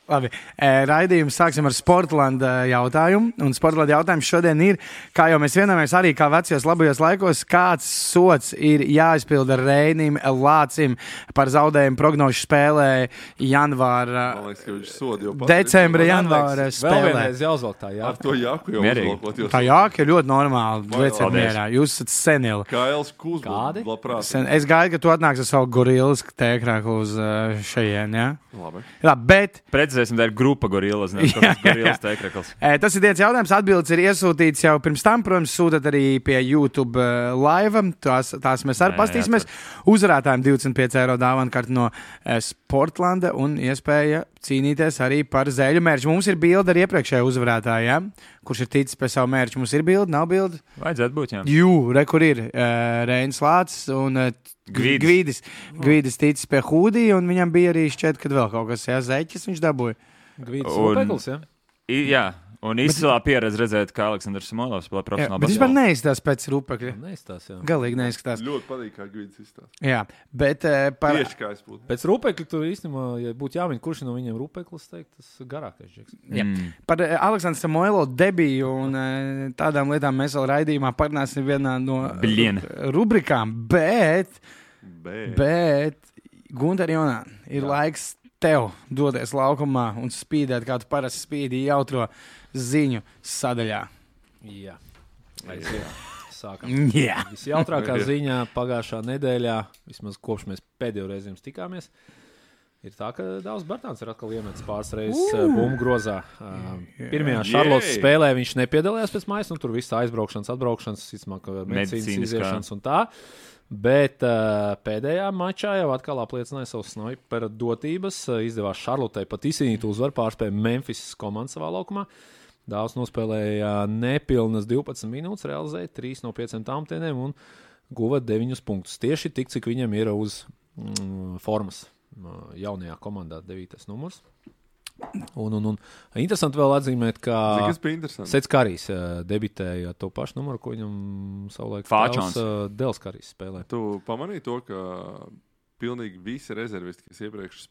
Labi, raidījums sāksim ar Sportlanda jautājumu. Un Sportlanda jautājums šodien ir, kā jau mēs vienojamies arī kā vecajos labajos laikos, kāds sots ir jāizpilda Reinim Lācim par zaudējumu prognožu spēlē janvāra, decembra janvāra spēlē. Vēl vienreiz jāuzvalk tā jāka. Ar to jāku jau uzvalkot. Tā jāka ir ļoti normāli. Lieciet mierā. Jūs esat senili. Kails Kuzbūs, labprāt. Es gaidu, ka tu atnāks ar savu gorilas tēkrāku uz šajien, jā? Labi, bet... Precizēsim, tā ir grupa gorilas, nevis gorilas tēkrakls. Tas ir tiec jautājums, atbildes ir iesūtīts jau pirms tam, protams, sūtat arī pie YouTube live, tās mēs arī pastīsimies. Uzvarētājiem 25 eiro dāvana no Sportlanda un iespēja cīnīties arī par zēļu mērķu. Mums ir bilde ar iepriekšēju uzvarētāju, ja? Kurš ir ticis pie savu mērķu. Mums ir bilde, nav bilde? Vajadzētu būt, jā. Kur ir Reinis Lācis un Gvidis ticis pie Hūdija, un viņam bija arī šķiet, kad vēl kaut kas, jā, zeķis viņš dabūja. Gvidis Rupekls, jā? Jā. Un izcilā pieredze redzēt, kā Aleksandrs Smolovs spēlē profesionāli. Bet vispār neizstās pēc Rupekļa. Neizstās, jā. Galīgi neizskatās. ļoti patīk, kā Gvidis izstās. Jā, bet par... Tieši kā es būtu. Pēc Rupekļa tur īstenībā, ja būtu jāmin, kurš no viņiem Rupeklis teikt, tas garākais džeks. Par Aleksandru Samoilo debiju un tādām lietām mēs vēl raidījumā parunāsim vienā no rubrikām, bet Gunter Jonā, ir laiks tev doties laukumā un spīdēt, kā tu parasti spīdi jautro ziņu sadaļā. Jā. Sākam. Visjautrākā ziņā pagājušā nedēļā, vismaz kopš mēs pēdējo reizi jums tikāmies, ir tā, ka Dāvs Bartāns ir atkal iemetis pāris reizes bumbu grozā. Pirmajā Šarlotas spēlē viņš nepiedalījās pēc mājas, tur viss aizbraukšanas, atbraukšanas, medicīnas iziešanas un tā. Bet pēdējā mačā jau atkal apliecināja savu snaiperu dotības. Izdevās Šarlotei pat izcīnīt uzvaru, pārspēja Memphis komandu savā laukumā. Dāvs nospēlēja nepilnas 12 minūtes, realizēja 3 no 5 tāmtieniem un guva 9 punktus. Tieši tik, cik viņam ir uz formas jaunajā komandā 9. numurs. Un interesanti vēl atzīmēt, ka Sets Karijs debitēja to pašu numuru, ko viņam savulaik tēvs Dels Karijs spēlē. Tu pamanīji to, ka pilnīgi visi rezervisti, kas iepriekš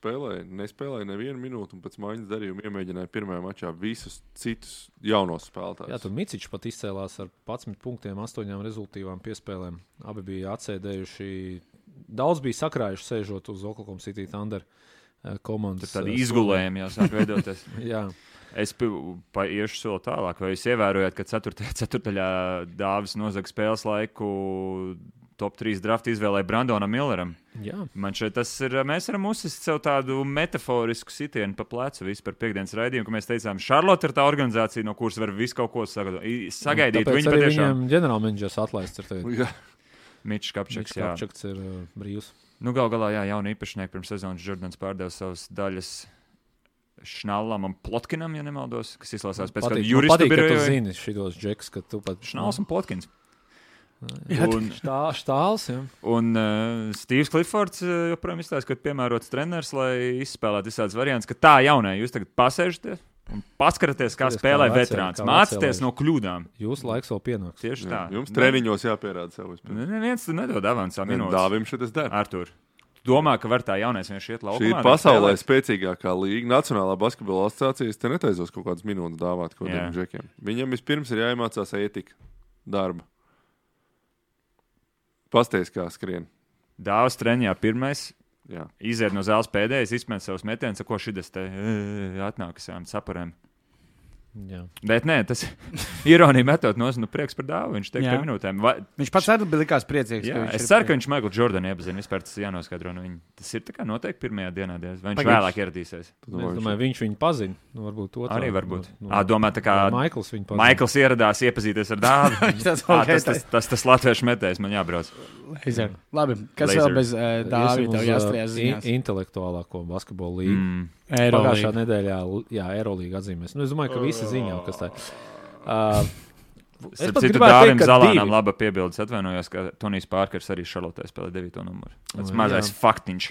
nespēlēja nevienu minūtu un pēc maiņas darījuma iemēģināja pirmajā mačā visus citus jaunos spēlētājus. Jā, tur Micičs pat izcēlās ar 11 punktiem, 8 rezultīvām piespēlēm. Abi bija atsēdējuši, daudz bija sakrājuši sēžot uz Oklahoma City Thunder komandas. Tad tādi izgulējumi jau sāk veidoties. Jā. Es iešu soli tālāk. Vai jūs ievērojat, ka 4. Dāvis nozaga spēles laiku top 3 draftu izvēlēja Brandonam Milleram? Jā. Man šeit tas ir, mēs varam uzsist sev tādu metaforisku sitienu pa plecu visu par piekdienas raidījumu, ka mēs teicām, Šarlota ir tā organizācija, no kuras var visu kaut ko sagaidīt. Tāpēc arī viņam ģenerālmenedžers atlaists ir tagad. Mičs Kapčaks, jā. Kapčaks ir brīvs. Galā, jā, jauni īpašnieki pirms sezonas Jordans pārdeva savas daļas Šnallam un Plotkinam, ja nemaldos, kas izlasās pēc kādu juristu biroju. Patīk, ka tu zini šitos džeks, ka tu pat... Šnalls un Plotkins. Štāls, jā. Un Steves Cliffords joprojām izstāsta, ka piemērots treneris, lai izspēlētu visādas variants, ka tā jaunē, jūs tagad pasēžaties un paskaraties, kā spēlē veterāns. Mācieties no kļūdām. Jūsu laiks vēl pienāks. Tieši tā. Jums treniņos jāpierāda savu spēju. Neviens tu nedod avansā minūtes. Dāvim šitas der. Artur, domā, ka var tā jaunais vienkārši iet laukumā? Šī ir pasaulē spēcīgākā līga. Nacionālā basketbola asociācijas te netaizos kaut kādas minūtes dāvāt kodiem džekiem. Viņam vispirms ir jāiemācās ētika darba. Pasties, kā skrien. Dāvas treniņā pirmais. Jā. Iziet no zāles pēdējais, izmet savus metienus, ko šitas te atnākas saparēm. Jā. Bet nē, tas ironija metot no prieks par Dāvu. Viņš teiks pie minūtēm. Viņš pats arī bija likās priecīgs. Jā, es ceru, ka viņš Michael Jordanu iepazina. Vispār tas jānoskaidro no viņa. Tas ir tā kā noteikti pirmajā dienā, vai viņš vēlāk ieradīsies. Es domāju, viņš viņu pazina. Varbūt otrā. Arī varbūt. Domā, tā kā Maikls viņu pazina. Maikls ieradās iepazīties ar Dāvu. Tas latviešu metējs man jābrauc. Labi, kas vēl bez Dāvi tev jāstrījās ziņās? Intelektuālāko basketbolu līgu. Pagājušā nedēļā, Eirolīga atzīmēs. Es domāju, ka visi ziņā, kas tā. Es pat gribētu teikt, ka Dāvim laba piebildes atvainojos, ka Tonijs Pārkers arī Šarlotē spēlē 9. numuru. Tas mazais faktiņš.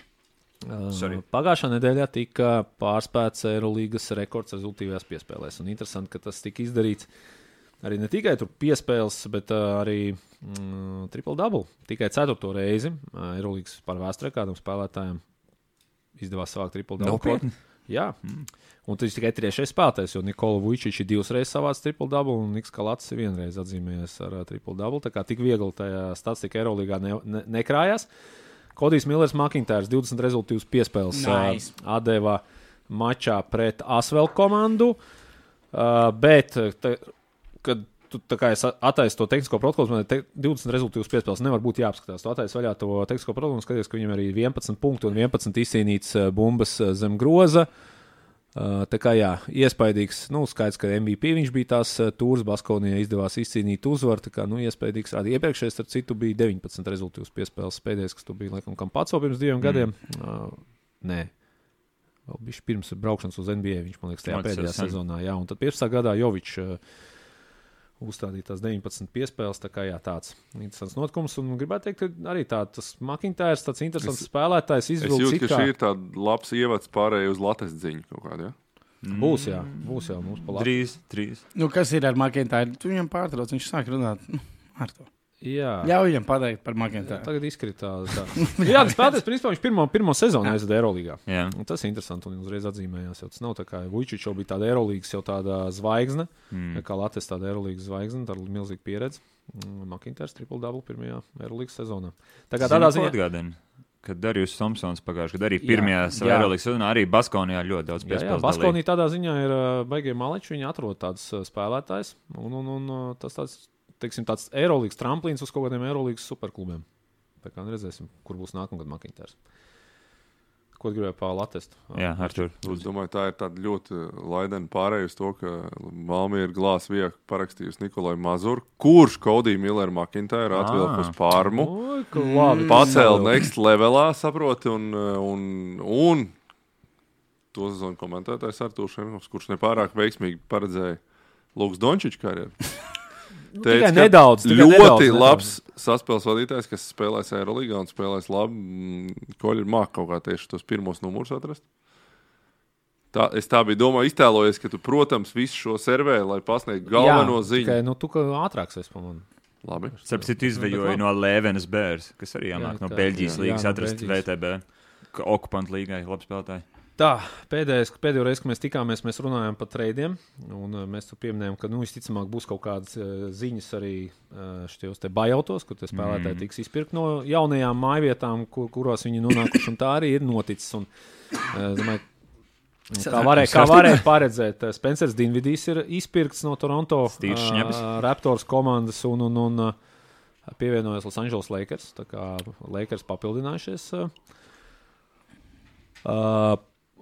Pagājušā nedēļā tika pārspēts Eirolīgas rekords rezultīvajās piespēlēs. Un interesanti, ka tas tika izdarīts arī ne tikai tur piespēles, bet arī triple-double. Tikai 4. reizi Eirolīgas par vēsturē kādam spēlētājiem izdevās savākt triple-double. Jā. Un tas ir tikai 3. spēlētājs, jo Nikola Vujčič ir 2 reizes savāds triple-double un Niks Kalats ir 1 reize atzīmējies ar triple-double. Tā kā tik viegli tajā statistika Eirolīgā nekrājās. Kodijs Millers Makintārs 20 rezultīvus piespēles atdeva mačā pret Asvel komandu, bet, kad tu attaisi to tehnisko protokolu, man 20 rezultīvus piespēles nevar būt jāapskatās. Tu attaisi vaļā to tehnisko protokolu un skaties, ka viņam arī 11 punktu un 11 izcīnīts bumbas zem groza. Tā kā jā, iespaidīgs, skaidrs, ka MVP viņš bija tās tūras, Baskonijai izdevās izcīnīt uzvaru, tā kā, iespaidīgs rādi. Iepriekšējais, ar citu, bija 19 rezultīvus piespēles pēdējais, kas tu bija, laikam, Kampatso pirms 2 gadiem. Nē, vēl bija pirms braukšanas uz NBA, viņš, man liekas, tajā pēdējā sezonā, jā, un tad 15. gadā Jovičs uzstādīja tās 19 piespēles, tā kā jā, tāds interesants notikums, un gribētu teikt, ka arī tas Makintārs, tāds interesants spēlētājs izvilks. Es jūtu, ka šī ir tāda labs ievads pārējai uz lates dziņu kaut kādu, ja? Būs jau mums pa labi. Drīz. Kas ir ar Makintāru? Tu viņam pārtrauc, viņš sāk runāt ar to. Jā. Ļauj viņam pateikt par Makintāru. Tagad izkritās. Jā, tas spēlētājs, principā, viņš pirmo sezonu aizveda Eirolīgā. Un tas ir interesanti, un uzreiz atzīmējās. Tas nav tā kā Vujčič jau bija tāda Eirolīgas jau tāda zvaigzne, kā Latvijas tāda Eirolīgas zvaigzne, tāda milzīga pieredze. Makintārs triple-double pirmajā Eirolīgas sezonā. Tā kā tādā ziņā atgādina, kad Darjus Thompsons pagājuši, kad arī pirmajā Eirolīgas sezonā arī Baskonijā ļoti daudz piespēles. Jā, Baskonija tādā ziņā ir baigie maleči, viņi atrod tāds spēlētājs, un tas tāds, teiksim, tāds Eirolīgas tramplīns uz kaut kādiem Eirolīgas superklubiem. Tā kā redzēsim, kur būs nākamgad Makintārs. Ko gribēju pa Latestu? Jā, Artur. Es domāju, tā ir tāda ļoti laidena pārēja uz to, ka Valmiera Glās viek parakstījusi Nikolai Mazuru, kurš Kodiju Milleru Makintāru atvilka uz Parmu. Pacēla next levelā, saproti, un to sezonu komentētājs Artūrs Ševinovs, kurš nepārāk veiksmīgi paredzēja Lukas Dončiča karjeru. Tikai nedaudz. Ļoti labs saspēles vadītājs, kas spēlēs Eirolīgā un spēlēs labi. Koļi ir māk kaut kā tieši tos pirmos numurus atrast. Es tā biju iztēlojies, ka tu, protams, visu šo servē, lai pasniegtu galveno ziņu. Tikai, tu kā ātrāks esi pa mani. Labi. Sapsit, izvejoja no Lēvenes Bērs, kas arī jāmāk no Beļģijas līgas atrast VTB. Okupantu līgai, labi spēlētāji. Tā, pēdējo reizi, kad mēs tikāmies, mēs runājām par treidiem, un mēs tur pieminējām, ka, visticamāk, būs kaut kādas ziņas arī šitajos te bajautos, kur te spēlētāji tiks izpirkt no jaunajām mājvietām, kurās viņi nonākuši, un tā arī ir noticis. Un, domāju, kā varēja paredzēt, Spencers Dinvidijs ir izpirkts no Toronto Raptors komandas un pievienojas Los Angeles Lakers, tā kā Lakers papildinājušies.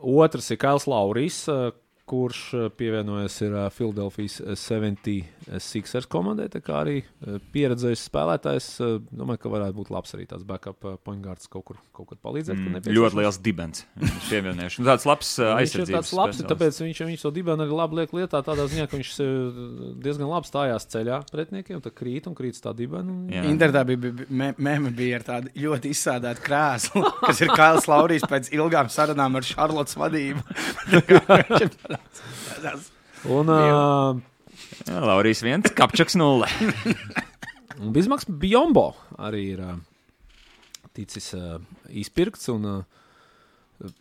Otrs ir Kails Laurijs, kurš pievienojas ir Philadelphijas 76ers komandai, tā kā arī pieredzējis spēlētājs. Domāju, ka varētu būt labs arī tāds backup point guards kaut kur palīdzēt. Ļoti liels dibens. Pievienojuši. Tāds labs aizsardzības. Viņš ir tāds labs, tāpēc viņš to dibenu arī labi liek lietā tādā ziņā, ka viņš diezgan labi stājās ceļā pretniekiem, tā krīt tā dibenu. Internetā bija ar tādu ļoti izsādātu krēslu, kas ir Kails Laurijs pēc ilgām sarunām ar Šarlotas vadību. Un Laurijs 1, Kapčaks 0. Bizmaks Bjombo arī ir ticis izpirkts un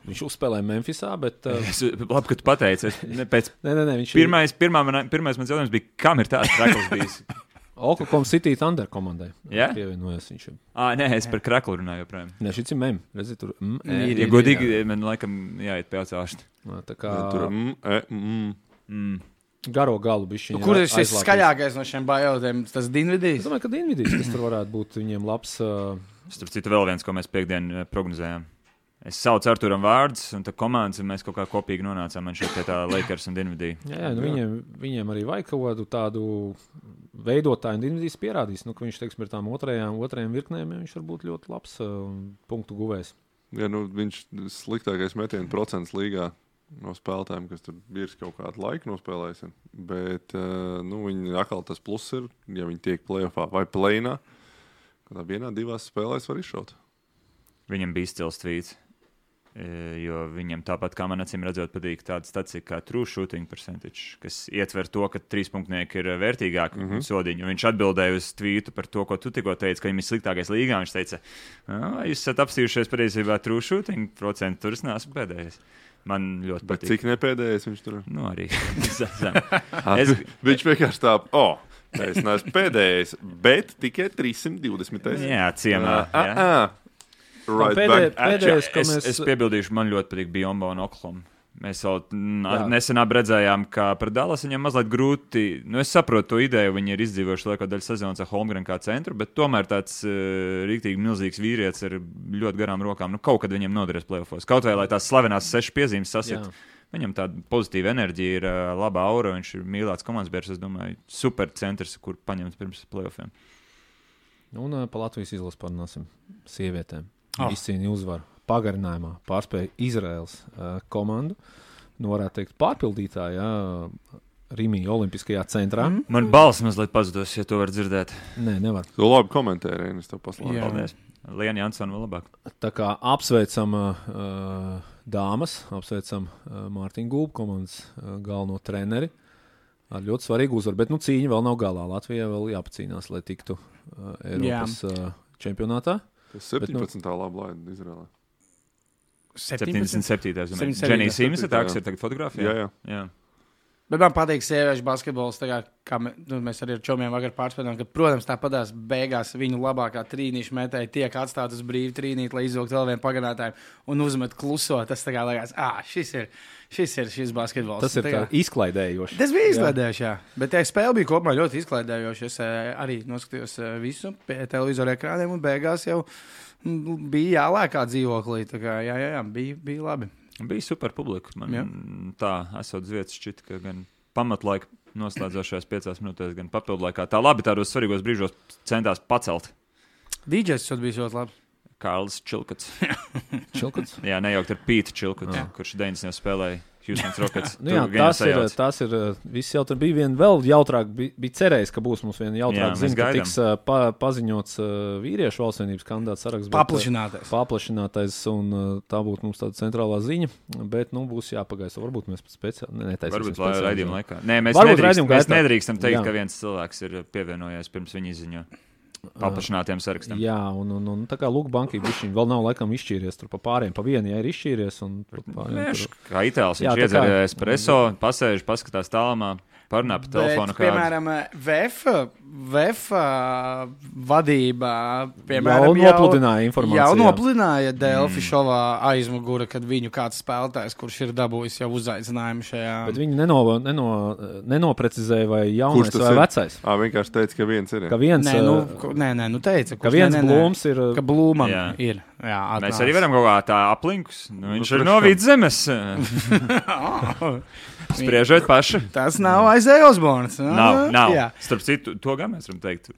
viņš uzspēlēja Memphisā, bet... Labi, ka tu pateici. Viņš pirmais mans jautājums bija, kam ir tāds trakls bijis? Oklahoma City Thunder komandai. Jā? Pievienojas viņš. Nē, es par kraklu runāju joprojām. Nē, šis ir mem. Redzi, tur Ja godīgi, man laikam jāiet pie atsāšt. Tā kā... Tur Garo galu bišķiņa. Kur ir šis skaļākais no šiem bajautiem? Tas Dinvidijs? Es domāju, ka Dinvidijs, kas tur varētu būt viņiem labs... Starp citu vēl viens, ko mēs piekdien prognozējām. Es saucu Arturam vārdus, un tā komandas, un mēs kaut kā kopīgi nonācām man šeit pie tā Lakers un Dinvidī. Jā, viņiem arī vajag kaut tādu veidotāju, un Dinvidijs pierādīs, ka viņš, teiksim, ir tām otrajām virknēm, viņš var būt ļoti labs punktu guvējs. Jā, viņš sliktākais metienu procents līgā no spēlētājiem, kas tur ir kaut kādu laiku nospēlējis. Bet viņi atkal tas plus ir, ja viņi tiek playoffā vai play-inā, kādā vienā, divās spēlēs var izšaut. Viņam bija stils tvīts. Jo viņam tāpat, kā man acīm redzot, patīk tāda statistika kā true shooting percentage, kas ietver to, ka trīspunktnieki ir vērtīgāki sodiņi. Viņš atbildēja uz tvītu par to, ko tu tikko teici, ka viņam ir sliktākais līgā. Viņš teica, jūs esat apstījušies patiesībā true shooting procentu, tur es neesmu pēdējais. Man ļoti Bet patīk. cik nepēdējais viņš tur? Nu, arī. Viņš vienkārši tā, es neesmu pēdējais, bet tikai 320. Jā, ciemā. Right back. Pēdējais, ko Es piebildīšu, man ļoti patīk Biombo un Oklahoma. Mēs jau nesen redzējām, ka pret Dallas viņam mazliet grūti. Es saprotu to ideju, viņi ir izdzīvojuši lielāko daļu sezonas ar Holmgren kā centru, bet tomēr tāds rīktīgi milzīgs vīrietis ar ļoti garām rokām. Kaut kad viņam noderēs playoffos. Kaut vai lai tās slavenās 6 piezīmes sasit. Viņam tāda pozitīva enerģija ir, laba aura, viņš ir mīlēts komandas biedrs, es domāju, super centrs, kur paņemt pirms playoffiem. Un pa Latvijas izlases parunāsim sievietēm. Izcīnīja uzvaru pagarinājumā, pārspēja Izraels komandu. Varētu teikt, pārpildītāja Rimī Olimpiskajā centrā. Man balss mazliet pazudos, ja to var dzirdēt. Nē, nevar. Tu labi komentēji, Reinis, tev paslēdzu. Paldies. Liena Jansona vēl labāk. Tā kā apsveicam dāmas, apsveicam Mārtiņu Gulbu komandas galveno treneri ar ļoti svarīgu uzvaru, bet cīņa vēl nav galā. Latvijai vēl jāpacīnās, lai tiktu Eiropas čempionātā. Tas 17. labi laida Izrēlē. 77. Dženija Simsa, tā kas ir tagad fotografijā. Jā. Bet man patīk sieviešu basketbols, kā mēs arī ar čomiem vakar pārspēlējām, ka, protams, tāpatās beigās viņu labākā trīnīša metēja tiek atstāt uz brīvu trīnīt, lai izvilkt vēl vienu pagarinātāju un uzmet kluso. Tas tā kā liekas, šis basketbols. Tas ir tā izklaidējoši. Tas bija izklaidējoši, jā. Bet spēle bija kopumā ļoti izklaidējoši. Es arī noskatījos visu pie televizora ekrāniem un beigās jau bija jālēkā dzīvoklī. Tā kā bija labi. Bija super publika. Man tā esot vietas šķita, ka gan pamatlaika noslēdzošajās 5 minūtēs, gan papildlaikā. Tā labi tādos svarīgos brīžos centās pacelt. DJs bija ļoti labi. Kārlis Čilkats. Čilkats? Jā, nejaukt ar Pītu Čilkatu, kurš 90. spēlēja Houston Rockets. Tas ir viss jautri. Bija viena vēl jautrāk, bija cerējis, ka būs mums viena jautrāk ziņa, ka tiks paziņots vīriešu valstsvienības kandidāts saraksts. Paplašinātais, un tā būtu mums tāda centrālā ziņa, bet, būs jāpagaisa. Varbūt mēs speciāli netaisīsim. Varbūt raidījuma laikā. Nē, mēs nedrīkstam teikt, ka viens cilvēks ir pievienojies pirms viņa izziņo. Paplašinātiem sarakstam. Jā, un tā kā Luka Banki viņš vēl nav laikam izšķīries tur pa pāriem, pa vienu, ja ir izšķīries. Kā itāls, viņš iedzer espresso, pasēž, paskatās tālumā, parunā pa telefonu. Piemēram, VF vadībā, piemēram, jau nopludināja Delfi šovā aizmugura, kad viņu kāds spēlētājs, kurš ir dabūjis jau uzaicinājumu šajā. Bet viņi nenoprecizēja, vai jaunais vai vecais. Vienkārši teica, ka viens ir. Ka viens, teica, ka viens Blūms ir. Ka Blūmam ir. Jā, mēs arī varam kaut kā tā aplinkus. Viņš ir no Vidzemes. Spriežot paši. Tas nav Isaiah Osborns. Nav. Starp citu, to gan mēs varam teikt,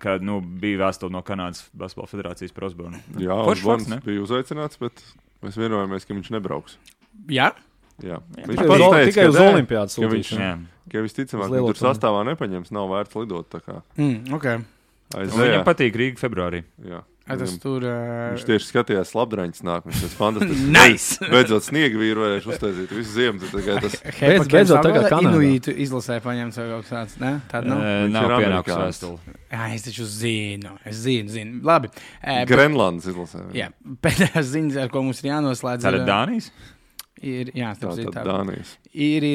ka bija vēstule no Kanādas Basketbola federācijas par Osbornu. Jā, Osborns bija uzaicināts, bet mēs vienojāmies, ka viņš nebrauks. Jā? Jā. Tikai uz Olimpiādas sūtīšanu. Ka visticamāk, viņš tur sastāvā nepaņems, nav vērts lidot tā kā. Okay. Viņam patīk Rīga februārī. Jā. Viņš tieši skatījās Labdraņas nāk. Viņš tas fantastisks. Nice! Beidzot sniegu vīru varēšu uztaisīt visu ziemu. Beidzot tagad Kanādā. Inuītu izlasē paņemts vai kaut kāds, ne? Tāda nav? Nav pienākus vēstuli. Jā, es taču zinu. Labi. Grenlandes izlasē. Jā, pēdējās ziņas, ar ko mums ir jānoslēdz. Tā ir Dānijas? Jā, tā Dānijas. Ir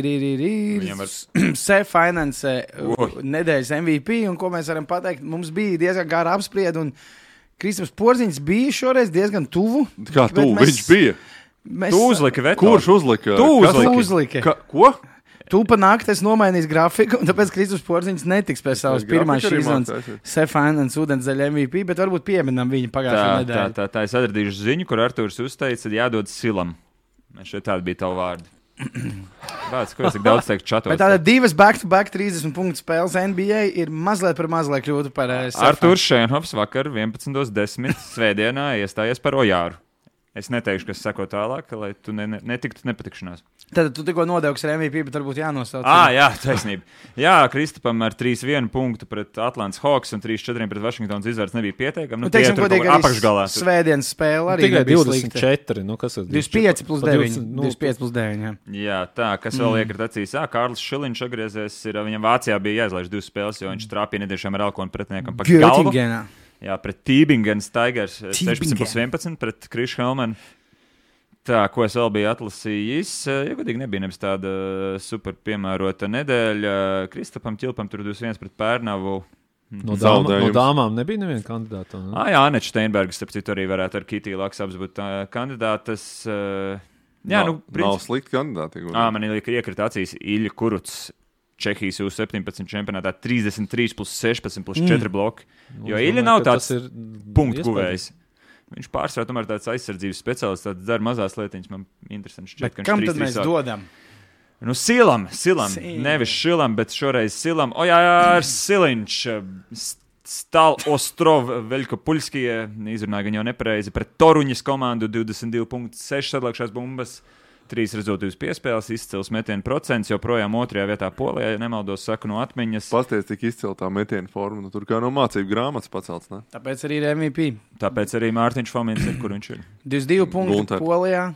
Finance nedēļas MVP, un ko mēs varam pateikt, mums bija diezgan gara apsprieda, un Kristaps Porziņš bija šoreiz diezgan tuvu. Kā tuvu? Viņš bija? Tu uzliki veto. Kurš uzlika? Tu uzliki. Ko? Tu pa nakti esi nomainījis grafiku, un tāpēc Kristaps Porziņš netiks pēc savas pirmās šīs sezonas Finance ūdenszaļa MVP, bet varbūt pieminam viņu pagājušā nedēļā. Tā es atradīšu ziņu, kur Artūrs uzteica, jādod Silam. Šeit tādi bija tavi vārdi. Bāc, ko es tik daudz teiktu čatos? Bet tāda 2 back-to-back 30 punktu spēles NBA ir mazliet par mazliet kļūtu par Artūrs Šēnhovs vakar 11.10. svētdienā iestājies par Ojāru. Es neteikšu, kas seko tālāk, lai tu netiktu nepatikšanās. Tad tu tikko nodevs ar MVP, bet varbūt jānosauc. Jā, taisnība. Jā, Kristapam ar 3-1 punktu pret Atlantas Hawks un 3-4 pret Washingtonas izvērts nebija pieteikami. Teiksim, godīgi, apakšgalā. Svētdienas spēle arī tikai 24. Kas ir? 25 plus 9. 25 plus 9, jā, tā, kas vēl iekrit acīs. Kārlis Šiliņš atgriezies, viņam Vācijā bija jāizlaiž 2 spēles, jo viņš trāpīja nediešām ar Alkonu pretiniekam pa galvu. Jā, pret Tībingens Tigers 16+11 pret Krišu Helmanu. Tā, ko es vēl biju atlasījis, ja godīgi nebija nebis tāda super piemērota nedēļa. Kristapam Ķilpam tur 21 pret Pērnavu. No dāmām nebija neviena kandidāta. Ne? Jā, Aneča Steinberga, starp citu, arī varētu ar Kitī Laksabs būt kandidātas. Jā, nav slikti kandidāti. Man iekrita acīs Ilja Kurucs. Čehijas U17 čempionātā 33 plus 16 plus 4 bloki. Jo Ilja nav tāds punktu guvējs. Viņš pārsvarā tomēr tāds aizsardzības speciālists, tāds dara mazās lietiņas. Man interesanti šķiet, ka viņš 3-3 kam tad mēs dodam? Nu, Silam. Nevis Šilam, bet šoreiz Silam. Ojār Siliņš. Stal Ostrov Veļkopulskie. Izrunāja gan jau nepareizi pret Toruņas komandu 22.6 sadalākšās bumbas. 3 rezultātus piespēles, izcils metienu procents, joprojām 2. vietā Polijā, ja nemaldos, saku no atmiņas. Pasties, cik izcila tā metienu forma, tur kā no mācību grāmatas pacelts, ne? Tāpēc arī ir MVP. Tāpēc arī Mārtiņš Fomins ir, kur viņš ir. 22 punkti Polijā,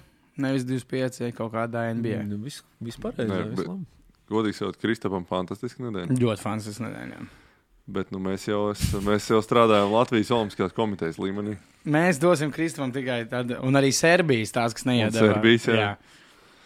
nevis 25 kaut kādā NBA. Vispārējais. Godīgi sakot, Kristapam fantastiski nedēļa. Ļoti fantastiski nedēļa, jā. Bet mēs jau strādājam Latvijas Olimpiskās komitejas līmenī. Mēs dosim Kristapam tikai tad, un arī Serbijas tās, kas neiedeva. Serbijas, jā.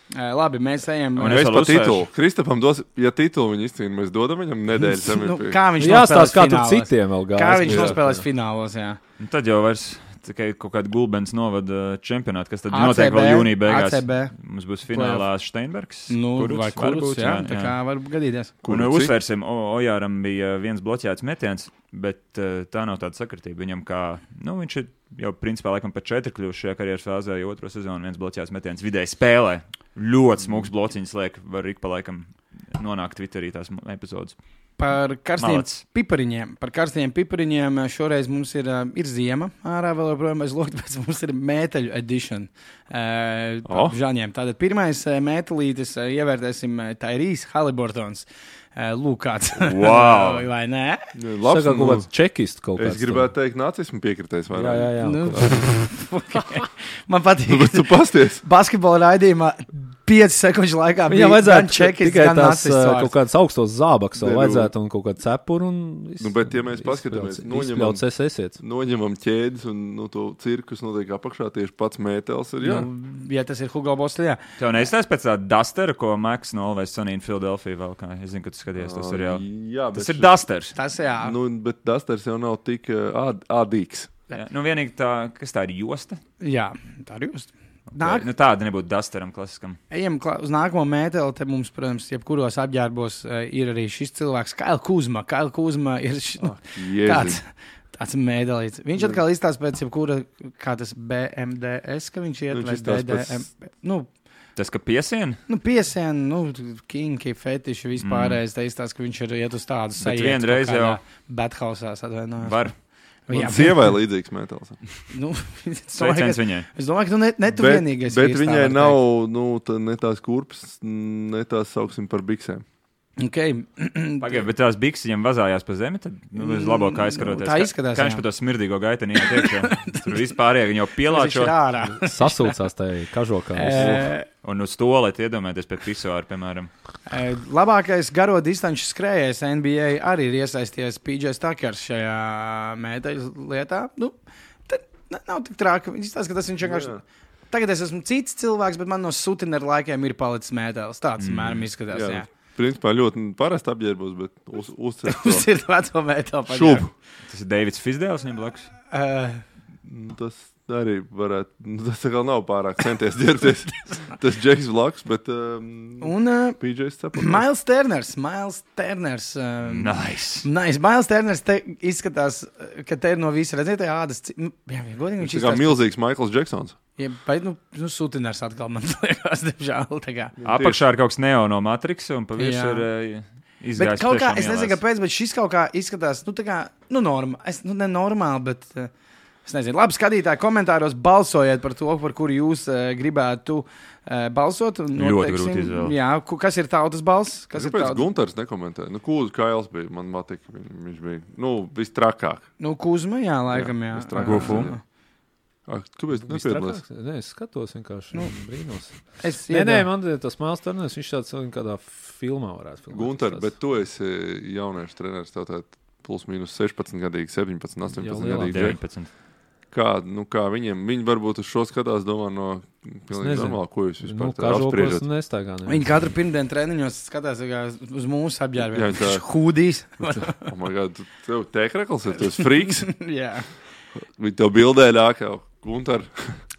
Labi, mēs ejam. Un es par titulu. Kristapam dos, ja titulu viņi izcīna, mēs dodam viņam nedēļas MVP. Kā viņš nospēlēs kā tur citiem vēl gājas. Kā viņš nospēlēs finālos, jā. Un tad jau vairs tikai kaut kāda Gulbens novada čempionāta, kas tad notiek vēl jūnija beigās. ACB. Mums būs finālā Steinbergs. Vai Kurucs, jā. Tā kā var gadīties. Un uzsvērsim, Ojāram bija viens bloķēts metiens, bet tā nav tāda sakritība. Viņam kā, viņš ir jau principā laikam par 4 kļuvuši šajā karjeras fāzē, jo 2. sezonu viens bloķēts metiens vidēji spēlē. Ļoti smūgs blociņas liek, var ik pa laikam nonākt Twitterī tās epizodes. Par karstiem pipariņiem šoreiz mums ir ziema ārā vēl joprojām bez loka, tāpēc mums ir mēteļu edition žaņiem. Tātad pirmais mētelītis ievērtēsim Tyrese Haliburtons. Lūk, kāds. Wow. Vai nē? Labs, kaut kāds čekists kaut kāds. Es gribētu teikt, nacismu piekritējis vairāk. Jā. Man patīk. Bet tu pasties. Basketbola raidījumā 5 sekundžu laikā viņam vajadzētu čekists, tikai tās kaut kādas augstos zābaks vēl vajadzētu un kaut kādu cepuru un bet ja mēs paskatāmies, noņemam ķēdes un to cirkus notiek apakšā tieši pats mētels ir, jā. Ja tas ir Hugo Boss, jā. Tev neizstāst pēc tā Dustera, ko Max no Always Sunny in Philadelphia vēl kā. Es zinu, ka tu skaties to seriālu. Jā, tas ir Dusters. Tas jā. Bet Dusters jau nav tik ādīgs. Jā. Vienīgi tā, kas tā ir josta? Jā, tā ir josta. Tāda nebūtu Dusteram klasiskam. Ejam uz nākamo mēteli. Te mums, protams, jebkuros apģērbos ir arī šis cilvēks, Kaila Kuzma. Kaila Kuzma ir tāds mēdelīts. Viņš atkal izstāsta pēc jebkura, kā tas BMDS, ka viņš iet vai DDM. Tas, ka piesien? Piesien, kinki, fetiši vispārējais. Te izstāsta, ka viņš ir iet uz tādu sajietu. Bet vienreiz jau Bathausās atvainojās. Var. Sievai līdzīgs mētels. Sveiciens viņai. Es domāju, ka tu vienīgais. Bet viņai nav ne tās kurpes, ne tās sauksim par biksēm. Okay. Pagaid, bet tās bikses viņam vazājās pa zemi, tad uz labo kā aizskaroties. Tā izskatās, kā viņš pa to smirdīgo gaiteni iet iekšā. Tur vispārējie viņi jau pielāčo. Sasūcās tajā kažokā. Un uz stolēt iedomāties pie pisoāra, piemēram. Labākais garo distanču skrējējs NBA arī ir iesaisties PJ Tuckers šajā mēteļu lietā. Nav tik trāka. Viņš izstāsta, ka tas viņš vienkārši... Tagad es esmu cits cilvēks, bet man no Sutineru laikiem ir palicis mētelis. Tāds mēram izskatās, jā. Principā ļoti parasti apģērbos, bet uzcēt to. Uzcēt veco mēteli šubu. Tas ir Davids Fisdēls viņam blakus? Tas arī varētu, tas vēl nav pārāk centies ģērbties. Tas Džeks blakus, bet PJs cepur. Miles Turners. Nice. Miles Turners te izskatās, ka te ir no visa redzēt ādas. Jā, godīgi viņš izskatās. Tā kā milzīgs Michaels Džeksons. Ja, bet, Sutiners atkal man liekas, diemžēl. Apakšā ir kaut kas neo no Matrixa un pa virsmu ir izgājis. Bet kaut kā, es nezinu, kāpēc, bet šis kaut kā izskatās, nenormāli, bet es nezinu. Labi, skatītāji, komentāros balsojiet par to, par kuru jūs gribētu balsot. Ļoti grūti izvēlēt. Jā, kas ir tautas balss? Kāpēc Gunters nekomentēja? Kūzu Kails bija, man patika, viņš bija, vistrakāk. Kuzma, jā, laikam, jā. Gufu. Kāpēc tu nepiedalās? Nē, es skatos vienkārši brīnos. Man tas Miles Turners, viņš tāds kādā filmā varētu filmēt. Gunter, bet tu esi jauniešu treneris, tev plus mīnus 16 gadīgi, 17, 18 gadīgi. 19. kā viņi varbūt uz šo skatās, domā no pilnīgi normāli, ko jūs vispār apspriežat. Viņi katru pirmdienu treniņos skatās uz mūsu apģērbiem. Hūdīs. Oh my God, tev tēkrekls ir, tu esi friks. Jā. Viņi tev bildē ļāk jau. Guntar.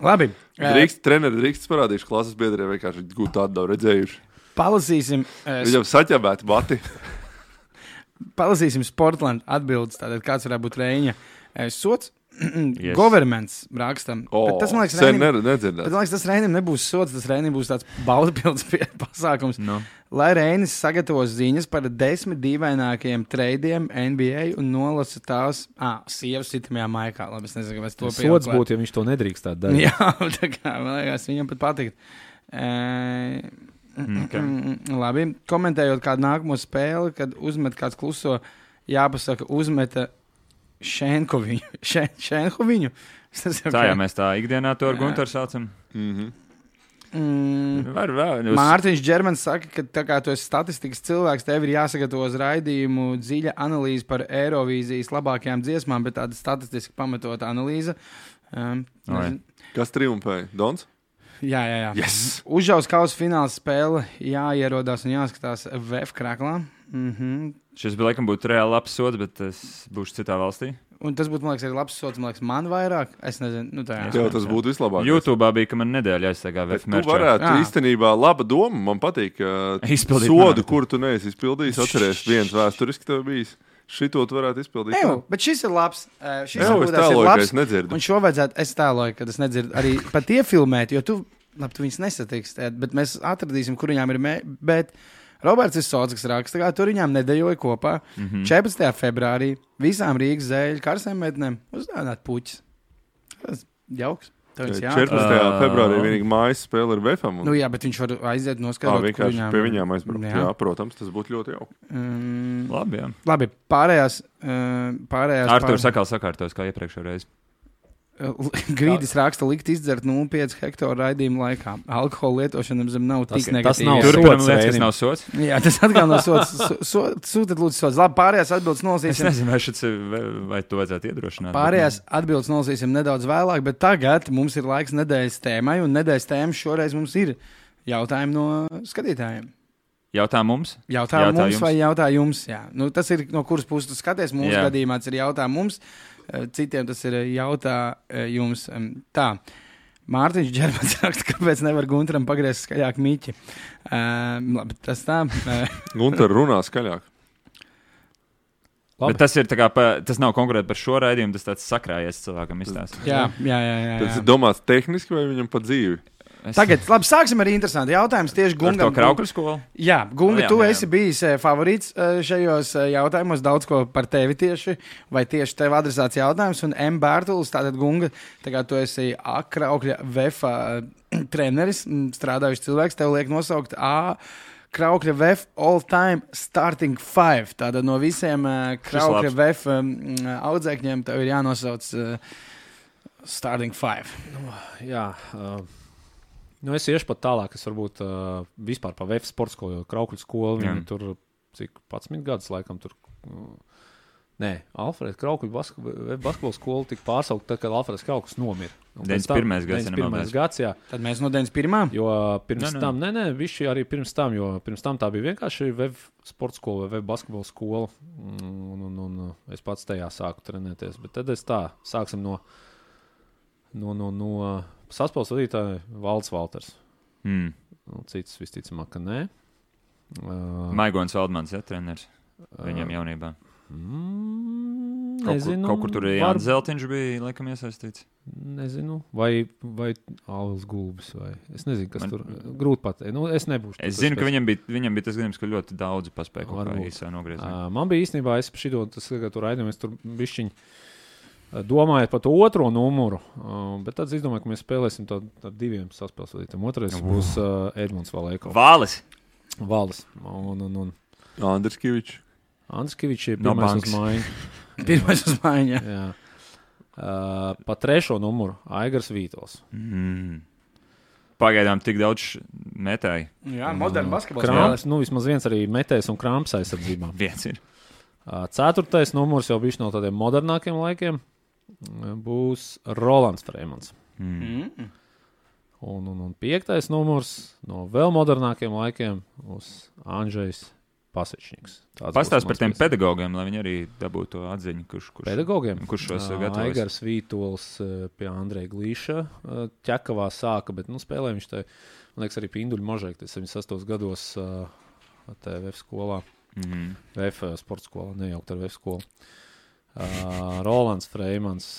Labi. Treneri drīkst parādījuši klases biedriem, vienkārši gūt tādu redzējuši. Palasīsim. Viņam saķabēti bati. Palasīsim Sportland atbildes, tātad kāds varētu būt Reiņa sots. Yes. Governments rakstam. Tas, man liekas, tas Reinim nebūs sots, tas Reinim būs tāds baudapilds pasākums. No. Lai Reinis sagatavos ziņas par 10 dīvainākajiem treidiem NBA un nolasa tās sievas citamajā maikā. Labi, es nezinu, vai es to pieauklētu. Sots būtu, ja viņš to nedrīkstāt darīt. Jā, tā kā, man liekas, viņam pat patikt. Labi, komentējot kādu nākamo spēli, kad uzmet kāds kluso, jāpasaka, uzmeta Šenhoviņu. Tā, jā, mēs tā ikdienā to ar Guntaru saucam. Mārtiņš Džermans saka, ka tā kā tu esi statistikas cilvēks, tev ir jāsagatavo uz raidījumu dziļa analīze par Eirovīzijas labākajām dziesmām, bet tāda statistiski pamatota analīze. Kas triumfēja? Dons? Jā. Yes. Užaus kausa fināls spēle jāierodās un jāskatās VF krāklā. Šis bija laikam būtu reāli labs sods, bet es būšu citā valstī. Un tas būtu, man liekas, arī labs sods, man vairāk. Es nezinu, tas būtu vislabākais. YouTube'ā bija, ka man nedēļa jāizstāgā VF merčā. Tu varētu, īstenībā, laba doma, man patīk, sodu, kuru tu neesi izpildījis, atceries viens vēsturiski tev bijis. Šito tu varētu izpildīt. Bet šis ir labs. Es tēloju, ka es nedzirdu. Un šo vajadzētu, es tēloju, ka es nedzirdu arī pat iefilmēt, jo tu viņus nesatiks, bet mēs atradīsim, kur viņām ir bet Roberts ir sots, kas raksta, kā tur viņām nedejoja kopā 14. februārī visām Rīgas zēļu karsēm metnēm uzdāvināt puķis. Tas jauks. 14. februārī vienīgi mājas spēle ar VFam. Nu jā, bet viņš var aiziet noskatot, kur viņām. Pie viņām aizbraukt. Jā, protams, tas būtu ļoti jauki. Labi, jā. Labi, pārējās Arturs sakal sakārtos, kā iepriekšējā reizi. Grīdis raksta likt izdzert 0,5 hektāru raidījumu laikā. Alkohola lietošana zem nav tik negatīva. Tas nav sots. Tas nav sots. Jā, tas atkal nav sots. Sūtiet lūdzu sots. Labi, pārējās atbildes nolasīsim. Es nezinu, vai to vajadzētu iedrošināt. Pārējās atbildes nolasīsim nedaudz vēlāk, bet tagad mums ir laiks nedēļas tēmai, un nedēļas tēma šoreiz mums ir jautājumi no skatītājiem. Jautā mums? Jautā mums vai jautā jums? Jā. Nu, tas ir no kuras puses tu skaties. Mūsu gadījumā tas ir jautā mums. Citiem tas ir jautā jums. Tā, Mārtiņš Džermans raksta, kāpēc nevar Guntaram pagriezt skaļāk miķi. Labi, tas tā. Guntar runā skaļāk. Bet tas ir tā kā, tas nav konkrēti par šo raidījumu, tas tāds sakrājies cilvēkam izstāst. Jā. Tas ir domāts tehniski vai viņam pa dzīvi? Tagad, labi, sāksim ar interesantu jautājumu. Tieši Gungam. Ar to Kraukļu skolu? Jā, Gunga, tu esi bijis favorīts šajos jautājumos, daudz ko par tevi tieši, vai tieši tev adresēts jautājums, un M. Bērtulis, tātad Gunga, tagad tu esi Kraukļa VF treneris, strādājuši cilvēks, tev liek nosaukt Kraukļa VF all-time starting five. Tātad no visiem Kraukļa VF audzēkņiem tev ir jānosauc starting five. Es iešu pat tālāk, es varbūt vispār pa VF sporta skolu, jo Kraukļu skolu, viņi tur, cik 11 gadus laikam tur, Alfrēds Kraukļu basketbola skolu tika pārsaukt, tad, kad Alfrēds Kraukļus nomira. 91. gads, jā. Tad mēs no 91. Jo pirms tam, viši arī pirms tam, jo pirms tam tā bija vienkārši VF sporta skola vai VF basketbola skola, un es pats tajā sāku trenēties, bet tad es sāksim no saspēles vadītāja Valds Valters. Cits visticamāk, ka nē. Maigons Valdmans, treneris viņam jaunībā. Nezinu. Kaut kur tur Jānis Zeltiņš bija, laikam, iesaistīts. Nezinu. Vai Alvs Gulbis, vai es nezinu, kas tur grūti pateikt. Es nebūšu. Es zinu, ka viņam bija tas gadījums, ka ļoti daudzi paspēja kaut kā īsā nogriezt. Man bija īstenībā, es šito, tur raidījums, tur bišķiņ domājot par to otro numuru, bet tad es domāju, ka mēs spēlēsim tādu diviem saspēles vadītājiem. Otrais būs Edmunds Valēko. Vālis. Un Andris Kivičs. Andris Kivičs ir pirmais uz mājiņu. Pirmais uz mājiņu, jā. Pa trešo numuru Aigars Vītols. Pagaidām tik daudz metēji. Jā, moderna basketbols. Vismaz viens arī metējs un krāms aizsardzībā. Viens ir. Ceturtais numurs jau bišķi no tādiem modernākiem laikiem. būs Rolands Freimans. Un 5. numurs no vēl modernākiem laikiem būs Andžejs Pasečņiks. Pastāst par tiem pedagogiem, lai viņi arī dabūtu to atziņu, kurš pedagogiem? Kurš šos gatavojas? Aigars Vītols pie Andreja Glīša Ķekavā sāka, bet spēlē viņš te, man liekas, arī pie Induļa Možēka, 78 gados VF skolā, VF sporta skolā, nejaukt ar VF skolu. Rolands Freimans,